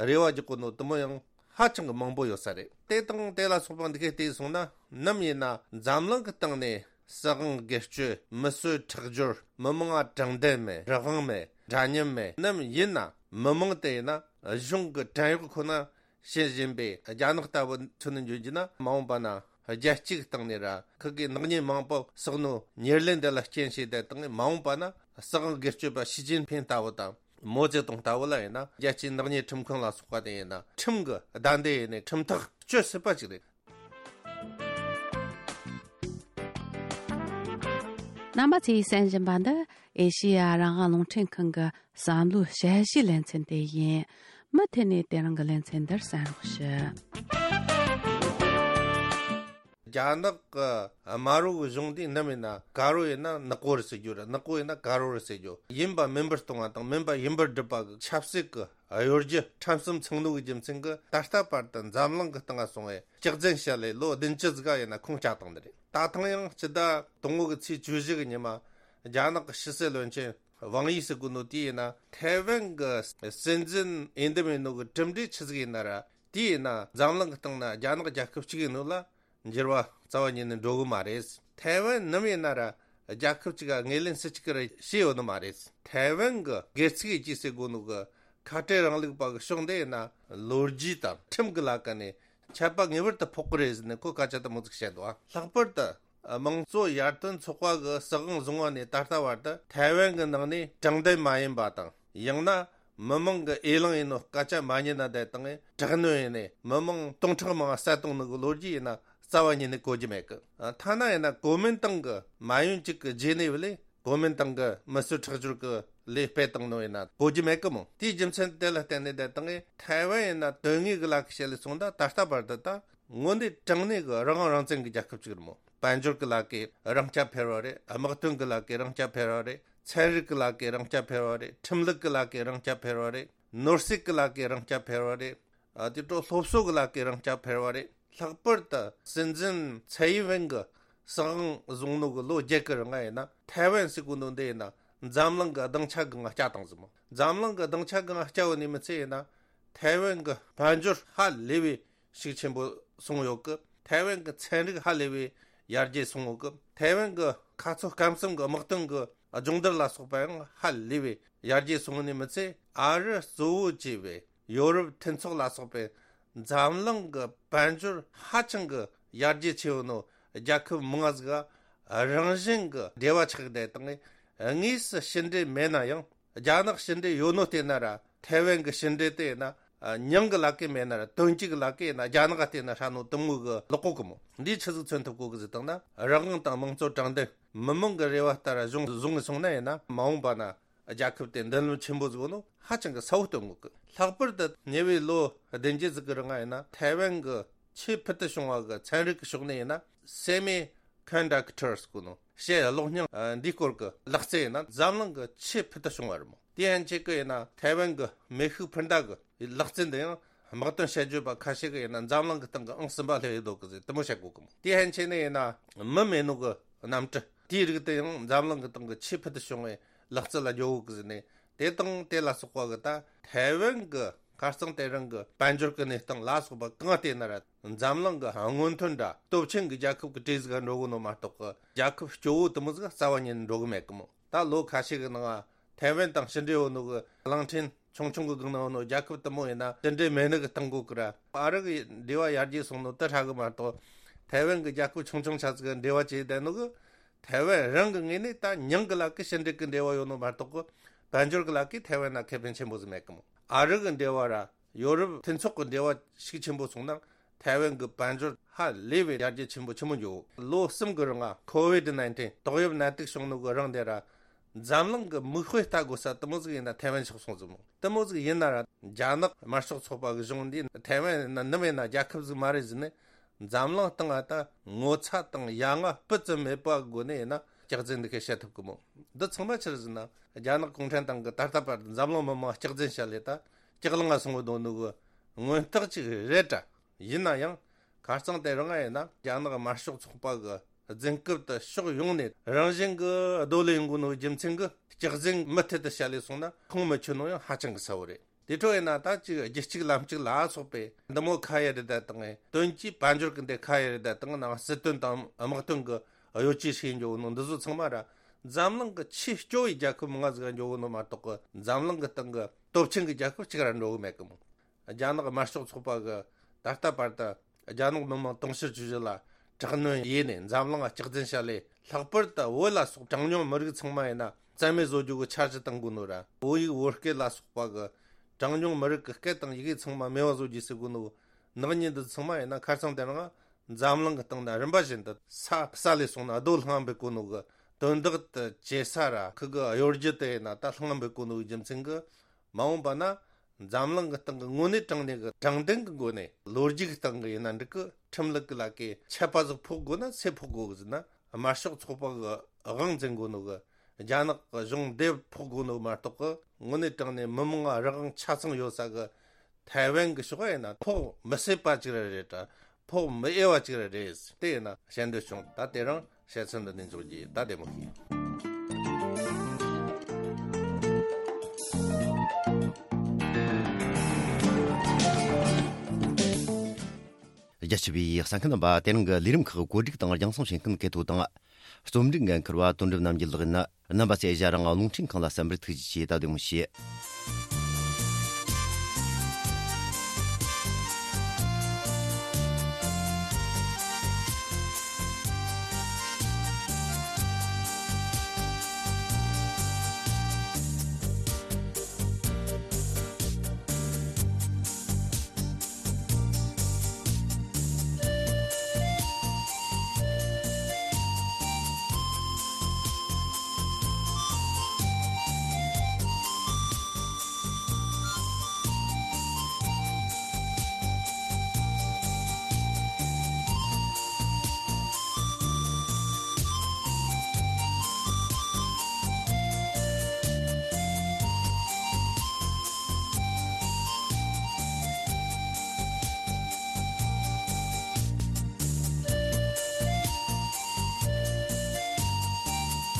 རེ་བ་རྒྱག་གོ་ནོ་དེ་མོ་ཡང་ཧ་ཅང་གི་མང་པོ་ཡོད་ས་རེད། དེ་དང་དེ་ལ་སོགས་པ་འདི་གའི་བལྟས་སོང་ན། ནམ་ཡིན་ན་འཛམ་གླིང་གི་སྟེང་ནས་སྲིད་དབང་སྒེར་གཅོད། མི་གསོད་ཁྲག་སྦྱོར། མི་མང་ང་དྲང་བདེན་མེད། རང་དབང་མེད། འདྲ་མཉམ་མེད། ནམ་ཡིན་ན་མི་མང་དེ་ཡིན་ན་གཞུང་གི་བྲན་གཡོག་ཁོ་ན་བྱེད་བཞིན་པའི་རྒྱ་ནག་ལྟ་བུ་མཚོན་ནས་འཇོག་རྒྱུ་ན། མ་འོངས་པ་ན་རྒྱལ་སྤྱིའི་སྟེང་ནས་ར་ཁུ་གེ་ནག་ཉེས་མང་པོ་བསགས་ནོ་ཉེར་ལེན་དེ་ལ་རྐྱེན་བྱས་ཏེ་དང་། མ་འོངས་པ་ན་སྲིད་དབང་སྒེར་གཅོད་པ་ཞི་ཅིན་ཕིང་ལྟ་བུ་དང་། མའོ་ཙེ་ཏུང་ལྟ་བུ་ལ་ཡིན་ན་རྒྱལ་སྤྱིའི་ནག་ཉེས་ཁྲིམས་ཁང་ལ་སོགས་པ་དེ་ཡིན་ན་ཁྲིམས་ཀྱི་བདའ་འདེད་ཡེ་ནས་ཁྲིམས་ཐག་གཅོད་སྲིད་པ་ཅིག་རེད། རྣམ་པ་ཚོས་གསན་བཞིན་པ་འདི་ཨེ་ཤེ་ཡ་རང་དབང་རླུང་འཕྲིན་ཁང་གི་བསམ་བློའི་དཔྱད་གཞིའི་ལེ་ཚན་དེ་ཡིན། མུ་མཐུད་ནས་དེ་རིང་གི་ལེ་ཚན་འདིར་གསན་རོགས་ཞུ། རྒྱ་ནག་གི་དམར་པོ་གི་གཞུང་འདི་ནམ་ཡིན་ན་དཀར་པོ་ཡིན་ན་ནག་པོ་རེད་ཟེར་རྒྱུ་རེད། ནག་པོ་ཡིན་ན་དཀར་པོ་རེད་ཟེར་རྒྱུ། ཡིན་པ་མིན་པར་གཏོང་བ་དང་མིན་པ་ཡིན་པར་སྒྲུབ་པ་གི་ཆབ་སྲིད་ཀྱི་གཡོ་སྒྱུ་ཁྲིམས་གསུམ་ཚང་ནོ་གི་རྒྱུ་མཚན་གྱིས། ད་ལྟ་བར་དུ་འཛམ་གླིང་གི་སྟེང་ང་སོང་བའི་སྐྱག་རྫུན་བཤད་ལས་ལོ་བདུན་ཅུ་ཟིག་ག་ཡིན་ན་ཁུངས་བཅད་བཏང་ནི་རེད། ད་ཐེངས་ཡང་སྤྱི་ཟླ་དང་པོ་གི་ཚེས་བཅུ་བཞི་གི་ཉི་མ་རྒྱ་ནག་གི་ཕྱི་སྲིད་བློན་ཆེན་ཝང་དབྱི་ཟེར་གོ་ནོ་དེ་ཡིན་ན་ཐའེ་ཝན་གྱི་སྲིད་འཛིན་འོས་འདེམས་ཡིན་ནོ་གི་གྲུབ་འབྲས་ཆི་ཟིག་ཡིན་ན་ར། དེ་ཡིན་ན་འཛམ་གླིང་གི་སྟེང་ན་རྒྱ་ནག་རྒྱལ་ཁབ་གཅིག་ཡིན་ནོ་ལ་འགྱུར་བ་རྩ་བ་ཉིད་ནས་འགྲོ་གི་མ་རེད། ཐའེ་ཝན་ནམ་ཡིན་ན་ར་རྒྱལ་ཁབ་གཅིག་ག་ངོས་ལེན་སུ་གཅིག་གིས་ར་བྱས་ཡོད་ནི་མ་རེད། ཐའེ་ཝན་གྱི་སྒེར་ཚུགས་ཡེ་རྒྱུ་ཟེར་གོ་ནོ་གི་ཁ་བྲལ་རིང་ལུགས་པ་གི་ཕྱོགས་འདི་ཡིན་ན་ལོ་རྒྱུས་དང་ཁྲིམས་ཀྱི་ལ་ཀ་ནས་ཆད་པ་ངེས་པར་དུ་ཕོག་གི་རེད་ཟེར་ནས་ཁོས་སྐད་ཆ་དེ་མོ་ཟིག་བཤད་འདུག། ལྷག་པར་དུ་དམངས་གཙོ་ཡར་ཐོན་ཚོགས་པ་གི་སྲིད་དབང་བཟུང་བ་ནས་ད་ལྟ་བར་དུ་ཐའེ་ཝན་གྱི་ནང་ནས་དྲང་བདེན་མ་ཡིན་པ་དང་། ཡང་ན་མི་མང་གི་འོས་ལངས་ཡིན་ནོ་སྐད་ཆ་མ་ཉན་ན་བསྡད་དང་། དྲག་གནོན་ཡེ་ནས་མི་མང་སྟོང་ཕྲག་མང་བསད་བཏང་ནི་གི་ལོ་རྒྱུས་ཡིན་ན་རྩ་བ་ཉིད་ནས་གོ་རྒྱུ་མེད་གི། ཐ་ན་ཡིན་ན་གོ་མིན་ཏང་གི་མ་ཡུན་གཅིག་གི་རྗེས་ནས་བ་ལས་གོ་མིན་ཏང་གི་མི་གསོད་ཁྲག་སྦྱོར་གི་ལས་སྤེལ་བཏང་ནོ་ཡིན་ན་གོ་རྒྱུ་མེད་གི་མོ། དེའི་རྒྱུ་མཚན་དེ་ལ་བརྟེན་ནས་བསྡད་དང་། ཐའེ་ཝན་ཡིན་ན་དོན་དངོས་གི་ལ་ཁ་བཤད་ལས་སོང་ད་ད་ལྟ་བར་དུ་ད་དངོས་གནས་དྲང་གནས་གི་རང་དབང་རང་བཙན་གི་རྒྱལ་ཁབ་ཅིག་རེད་མོ། དཔལ་འབྱོར་གི་ལ་ཀའི་རང་རྐྱ་འཕེར་བ་རེད། དམག་དོན་གི་ལ་ཀའི་རང་རྐྱ་འཕེར་བ་རེད། ཚན་རིག་གི་ལ་ཀའི་རང་རྐྱ་འཕེར་བ་རེད། ཁྲིམས་ལུགས་གི་ལ་ཀའི་རང་རྐྱ་འཕེར་བ་རེད། ནོར་སྲིད་གི་ལ་ཀའི་རང་རྐྱ་འཕེར་བ་རེད། ཨ་དེ་འཕྲོ་སློབ་གསོ་གི་ལ་ཀའི་རང་རྐྱ་འཕེར་བ་རེད། ལྷག་པར་དུ་སྲིད་འཛིན་ཚའེ་ཡིན་ཝེན་གི་ སྲིད་དབང་བཟུང་ནོ་གི་ལོ་བརྒྱད་ཀྱི་རིང་ང་ཡིན་ན། ཐའེ་ཝན་ཟེར་གོ་ནོ་འདི་ཡིན་ན་འཛམ་གླིང་གི་སྡིངས་ཆ་སྒང་བསྐྱལ་བཏང་ཟིག་མོ། འཛམ་གླིང་གི་སྡིངས་ཆ་སྒང་བསྐྱལ་བ་ནི་མི་ཚད་ཡིན་ན། ཐའེ་ཝན་གྱི་དཔལ་འབྱོར་ཧ་ལས་པའི་ཤུགས་ཆེན་པོ་སོང་ཡོད་གི། ཐའེ་ཝན་གྱི་ཚན་རིག་ཧ་ལས་པའི་ཡར་རྒྱས་སོང་ཡོད་གི། ཐའེ་ཝན་གྱི་ཁ་ཚོ་སྐམ་གསུམ་གྱི་དམག་དོན་གྱི་སྦྱོང་བརྡར་ལ་སོགས་པ་ཡང་ཧ་ལས་པའི་ཡར་རྒྱས་སོང་ནི་མི་ཚད། ཨ་རི་གཙོ་བོ་བྱས་པའི་ཡོ་རོབ་མཐུན་ཚོགས་ལ་སོགས་པའི་འཛམ་གླིང་གི་དཔལ་འབྱོར་ཧ་ཅང་གི་ཡར་རྒྱས་ཆེ་བོ་ནོ་རྒྱལ་ཁབ་མང་ང་ཟིག་ག་རང་བཞིན་གྱི་འབྲེལ་བ་ཆགས་བསྡད་དང་། དངོས་སུ་ཕྱི་འབྲེལ་མེད་ན་ཡང་རྒྱ་ནག་ཕྱི་འབྲེལ་ཡོད་ནོ་བལྟས་ན་ར། ཐའེ་ཝན་གྱི་ཕྱི་འབྲེལ་དེ་ཡིན་ན་མྱིང་གི་ལ་ཀེ་མེད་ན་ར། དོན་གཅིག་གི་ལ་ཀེ་ཡིན་ན་རྒྱ་ནག་ག་བལྟས་ན་ཧྲ་ནོ་དུ་མོ་གི་ལོག་གོ་གི་མོ། འདིས་ཆི་ཟིག་མཚོན་ཐུབ་གོ་གི་ཟིག་བཏང་ན། རང་དབང་དང་དམངས་གཙོ་དྲང་བདེན་མི་མང་གི་རེ་བ་ལྟར་གཞུང་བཟུང་ངེ་སོང་ན་ཡིན་ན། མ་འོངས་པ་ན་རྒྱལ་ཁབ་དེ་མདུན་ལམ་ཆེན་པོ་ཟིག་ནོ་ཧ་ཅང་གི་གསལ་བོ་སྟོན་གོ་གི། ལྷག་པར་དུ་ཉེ་བའི་ལོ་བདུན་བརྒྱད་ཟིག་གི་རིང་ང་ཡིན་ན། ཐའེ་ཝན་གྱི་ཆེས་ཕུལ་དུ་བྱུང་བ་གི་ཚན་རིག་གི་ཕྱོགས་ནས་ཡིན་ན། སེ་མི་ཀོན་ཌག་ཊར་ཟེར་གོ་ནོ། ཕྱེད་གློག་བརྙན་འདིའི་སྐོར་གྱི་ལག་རྩལ་ཡིན་ན་འཛམ་གླིང་གི་ཆེས་ཕུལ་དུ་བྱུང་བ་རེད་མོ། དེ་ཡན་ཆད་ཀྱི་ཡིན་ན་ཐའེ་ཝན་གྱི་མེ་ཤུགས་འཕུར་མདའ་གི་ལག་རྩལ་འདི་ཡང་དམག་དོན་དཔྱད་བརྗོད་པ་ཁ་ཤས་ཀྱིས་ཡིན་ན་འཛམ་གླིང་གི་སྟེང་གི་ཨང་གསུམ་པ་སླེབས་ཡོད་དོ་གི་ཟེར་དུ་མོ་བཤད་གོ་གི་མོ། དེ་ཡན་ཆད་ནས་ཡིན་ན་མི་མེད་ནོ་གི་གནམ་གྲུ་དེའི་རིགས་དེ་ཡང་འཛམ་གླིང་གི་སྟེང་གི་ཆེས་ཕུལ་དུ་བྱུང་བའི་ལག་རྩལ་ལ་འགྱོ་གོ་གི་ཟེར་ནས། དེ་དང་དེ་ལ་སོགས་པ་གི་ད་ཐའེ་ཝན་གི་ཁ་རྩང་དེ་རིང་གི་དཔལ་འབྱོར་གི་གནས་སྟངས་ལ་སོགས་པ་གང་བལྟས་ན་ར། འཛམ་གླིང་གི་སྔོན་ཐོན་ར་སྟོབས་ཆེན་གི་རྒྱལ་ཁབ་གི་གྲས་ཟིག་ག་འགྲོ་གི་ནོ་མ་གཏོགས་གི་རྒྱལ་ཁབ་སྐྱོ་བོ་དུ་མོ་ཟིག་རྩ་བ་ཉིད་ནས་འགྲོ་གི་མེད་གི་མོ། ད་ལོ་ཁ་ཤས་གི་ནང་ང་ཐའེ་ཝན་དང་ཕྱི་འབྲེལ་ཡོད་ནོ་གི་གླིང་ཕྲན་ཆུང་ཆུང་གི་སྒང་ན་ཡོད་ནོ་རྒྱལ་ཁབ་དུ་མོ་ཡིན་ན་ཕྱི་འབྲེལ་མེད་ནི་གི་སྟེང་གོ་གི་ར། ཨ་རི་གི་འབྲེལ་བ་ཡར་རྒྱས་སོང་ནོ་དེ་ཧྲ་གི་མ་གཏོགས། ཐའེ་ཝན་གི་རྒྱལ་ཁབ་ཆུང་ཆུང་ཆ་ཟིག་གི་འབྲེལ་བ་བྱས་བསྡད་ནོ་གི། ཐའེ་ཝན་རང་གི་ངོས་ནས་ད་མྱིང་གི་ལ་ཀི་ཕྱི་འབྲེལ་གི་འབྲེལ་བ་ཡོད་ནོ་མ་གཏོགས་གི་དཔལ་འབྱོར་གི་ལ་ཀི་ཐའེ་ཝན་ན་ཁེ་ཕན་ཆེན་པོ་ཟིག་མེད་གི་མོ། ཨ་རི་གི་འབྲེལ་བ་ར་ཡོ་རོབ་མཐུན་ཚོགས་གི་འབྲེལ་བ་ཤུགས་ཆེན་པོ་སོང་ན་ཐའེ་ཝན་གི་དཔལ་འབྱོར་ཧ་ལས་པའི་ཡར་རྒྱས་ཆེན་པོ་ཆེན་མོ་འགྱོ། ལོ་གསུམ་གི་རིང་ང་ཁོ་ཝིད་ནའིན་ཊིན་ཏོག་དབྱིབས་ནད་དུག་བྱུང་ནོ་གི་རིང་དེ་ར་འཛམ་གླིང་གི་མིག་དཔེ་ལྟ་དགོས་ས་དུ་མོ་ཟིག་ཡིན་ན་ཐའེ་ཝན་ཆགས་སོང་ཟིག་མོ། དུ་མོ་ཟིག་ཡིན་ན་ར་རྒྱ་ནག་དམར་ཤོག་ཚོགས་པ་གི་གཞུང་འདི་ཐའེ་ཝན་ཡིན་ན་ནམ་ཡིན་ན་རྒྱལ་ཁབ་ཟིག་མ་རེད་ཟེར་ནས། འཛམ་གླིང་སྟེང་ང་ད་ངོ་ཚ་དང་ཡ་ང་སྤུ་ཙམ་མེད་པ་སྒོ་ནས་ཡིན་ན་སྐྱག་རྫུན་འདི་ཁས་བཤད་ཐུབ་གི་མོ། འདི་ཚང་མ་ཆི་རེད་ཟེར་ན་རྒྱ་ནག་གུང་ཁྲན་ཏང་གི་ད་ལྟ་བར་དུ་འཛམ་གླིང་མི་མང་སྐྱག་རྫུན་བཤད་ལས་ད་སྐྱག་ལང་ང་སོང་བའི་དོན་ནི་གི་མངོན་རྟགས་ཅིག་རེད་དྲ། ཡིན་ན་ཡང་ཁ་རྩང་དེ་རིང་ང་ཡིན་ན་རྒྱ་ནག་དམར་ཤོག་ཚོགས་པ་གི་རྫུན་རྐུབ་དེ་ཕྱོགས་ཡོངས་ནས་རང་བཞིན་གི་རྡོ་ལ་ཡོང་གི་ནོ་རྒྱུ་མཚན་གི་སྐྱག་རྫུན་མུ་མཐུད་དུ་བཤད་ལས་སོང་ན་ཁུངས་མི་འཁྱོལ་ནོ་ཡང་ཧ་ཅང་གི་གསལ་བོ་རེད། དེ་འཕྲོ་ཡིན་ན་ད་ཅིག་རྒྱུ་གཅིག་ལམ་གཅིག་ལ་སོགས་པའི་འདི་མོ་ཁ་ཡ་རེ་ད་དང་། དོན་གྱིས་དཔལ་འབྱོར་གི་འདི་ཁ་ཡ་རེ་ད་དང་ནང་སྲིད་དོན་དང་དམག་དོན་གི་གཡོ་ཇུས་ཤིག་འགྱོ་ནོ་འདི་ཚོ་ཚང་མ་ར་འཛམ་གླིང་གི་ཆེས་སྐྱོ་བའི་རྒྱལ་ཁབ་མང་ང་ཟིག་འགྱོ་གི་ནོ་མ་གཏོགས་གི་འཛམ་གླིང་གི་སྟེང་གི་སྟོབས་ཆེན་གི་རྒྱལ་ཁབ་གཅིག་ར་འགྲོ་གི་མེད་གི་མོ། རྒྱ་ནག་དམར་ཤོག་ཚོགས་པ་གི་ད་ལྟ་བར་དུ་རྒྱ་ནག་མི་དམངས་དུང་ཕྱུར་བཅུ་བཞི་ལ་དྲག་གནོན་ཡས་ནས་འཛམ་གླིང་ལ་སྐྱག་རྫུན་བཤད་ལས། ལྷག་པར་དུ་བོད་ལ་སོགས་གྲངས་ཉུང་མི་རིགས་ཚང་མ་ཡིན་ན་རྩ་མེད་བཟོ་རྒྱུ་གི་འཆར་གཞི་བཏང་དགོས་ནོ་ར། བོད་ཡིག་བོད་སྐད་ལ་སོགས་པ་གི་གྲངས་ཉུང་མི་རིགས་ཀྱི་སྐད་དང་ཡི་གེ་ཚང་མ་མེད་པ་བཟོ་རྒྱུ་ཟེར་དགོས་ནོ། ནག་ཉེས་འདི་ཚང་མ་ཡིན་ན་ཁ་རྩང་དེ་རིང་འཛམ་གླིང་གི་སྟེང་ན་རིམ་པ་བཞིན་དུ་ས་བསལ་ལས་སོང་ན་རྡོ་ལྷང་འབེབས་གོ་ནོ་གི་དོན་དག་དེ་བྱེད་ས་ར་ཁུ་གི་གཡོ་སྒྱུ་དེ་ཡིན་ན་ད་ལྷང་འབེབས་གོ་ནོ་གི་རྒྱུ་མཚན་གི། མ་འོངས་པ་ན་འཛམ་གླིང་གི་སྟེང་གི་དངོས་གནས་དྲང་གནས་ཀྱི་དྲང་བདེན་གྱི་སྒོ་ནས་ལོ་རྒྱུས་ཀྱི་སྟེང་གི་ཡིན་ན་འགྲིག་གི། ཁྲིམས་ལུགས་ཀྱི་ལ་ཀའི་ཆད་པ་ཟིག་ཕོག་དགོས་ན་སུས་ཕོག་དགོས་གི་ཟེར་ན། དམར་ཤོག་ཚོགས་པ་གི་དབང་འཛིན་དགོས་ནོ་གི་རྒྱ་ནག་གི་གཞུང་འདེབས་ཕོག་དགོས་ནོ་མ་གཏོགས་གི། དངོས་གནས་དྲང་གནས་མི་མང་ང་རང་དབང་ཆ་ཚང་ཡོད་ས་གི་ཐའེ་ཝན་གི་ཕྱོགས་ཡིན་ན་ཕོག་མི་སྲིད་པ་ཅིག་ར་རེད་དྲ། ཕོག་མི་འོས་པ་ཅིག་ར་རེད། དེ་ཡིན་ན་བཤད་འདོད་བྱུང་། ད་དེ་རིང་བཤད་ཚུལ་འདི་ནས་འཇོག་རྒྱུ་ཡིན། ད་བདེ་མོ་བྱོས། རྒྱ་ཆེ་བའི་གསན་མཁན་རྣམ་པ། དེ་རིང་གི་ལས་རིམ་ཁག་གོ་སྒྲིག་དང་རྒྱང་སྲིང་བྱེད་མཁན་གལ་ཐོ་དང་། རྩོམ་སྒྲིག་འགན་འཁུར་བ་དོན་གྲུབ་རྣམ་རྒྱལ་ལགས་ཡིན། རྣམ་པ་ཚོས་ཞལ་རང་རླུང་འཕྲིན་ཁང་ལ་གསན་པར་ཐུགས་རྗེ་ཆེ། ད་བདེ་མོ་བྱོས།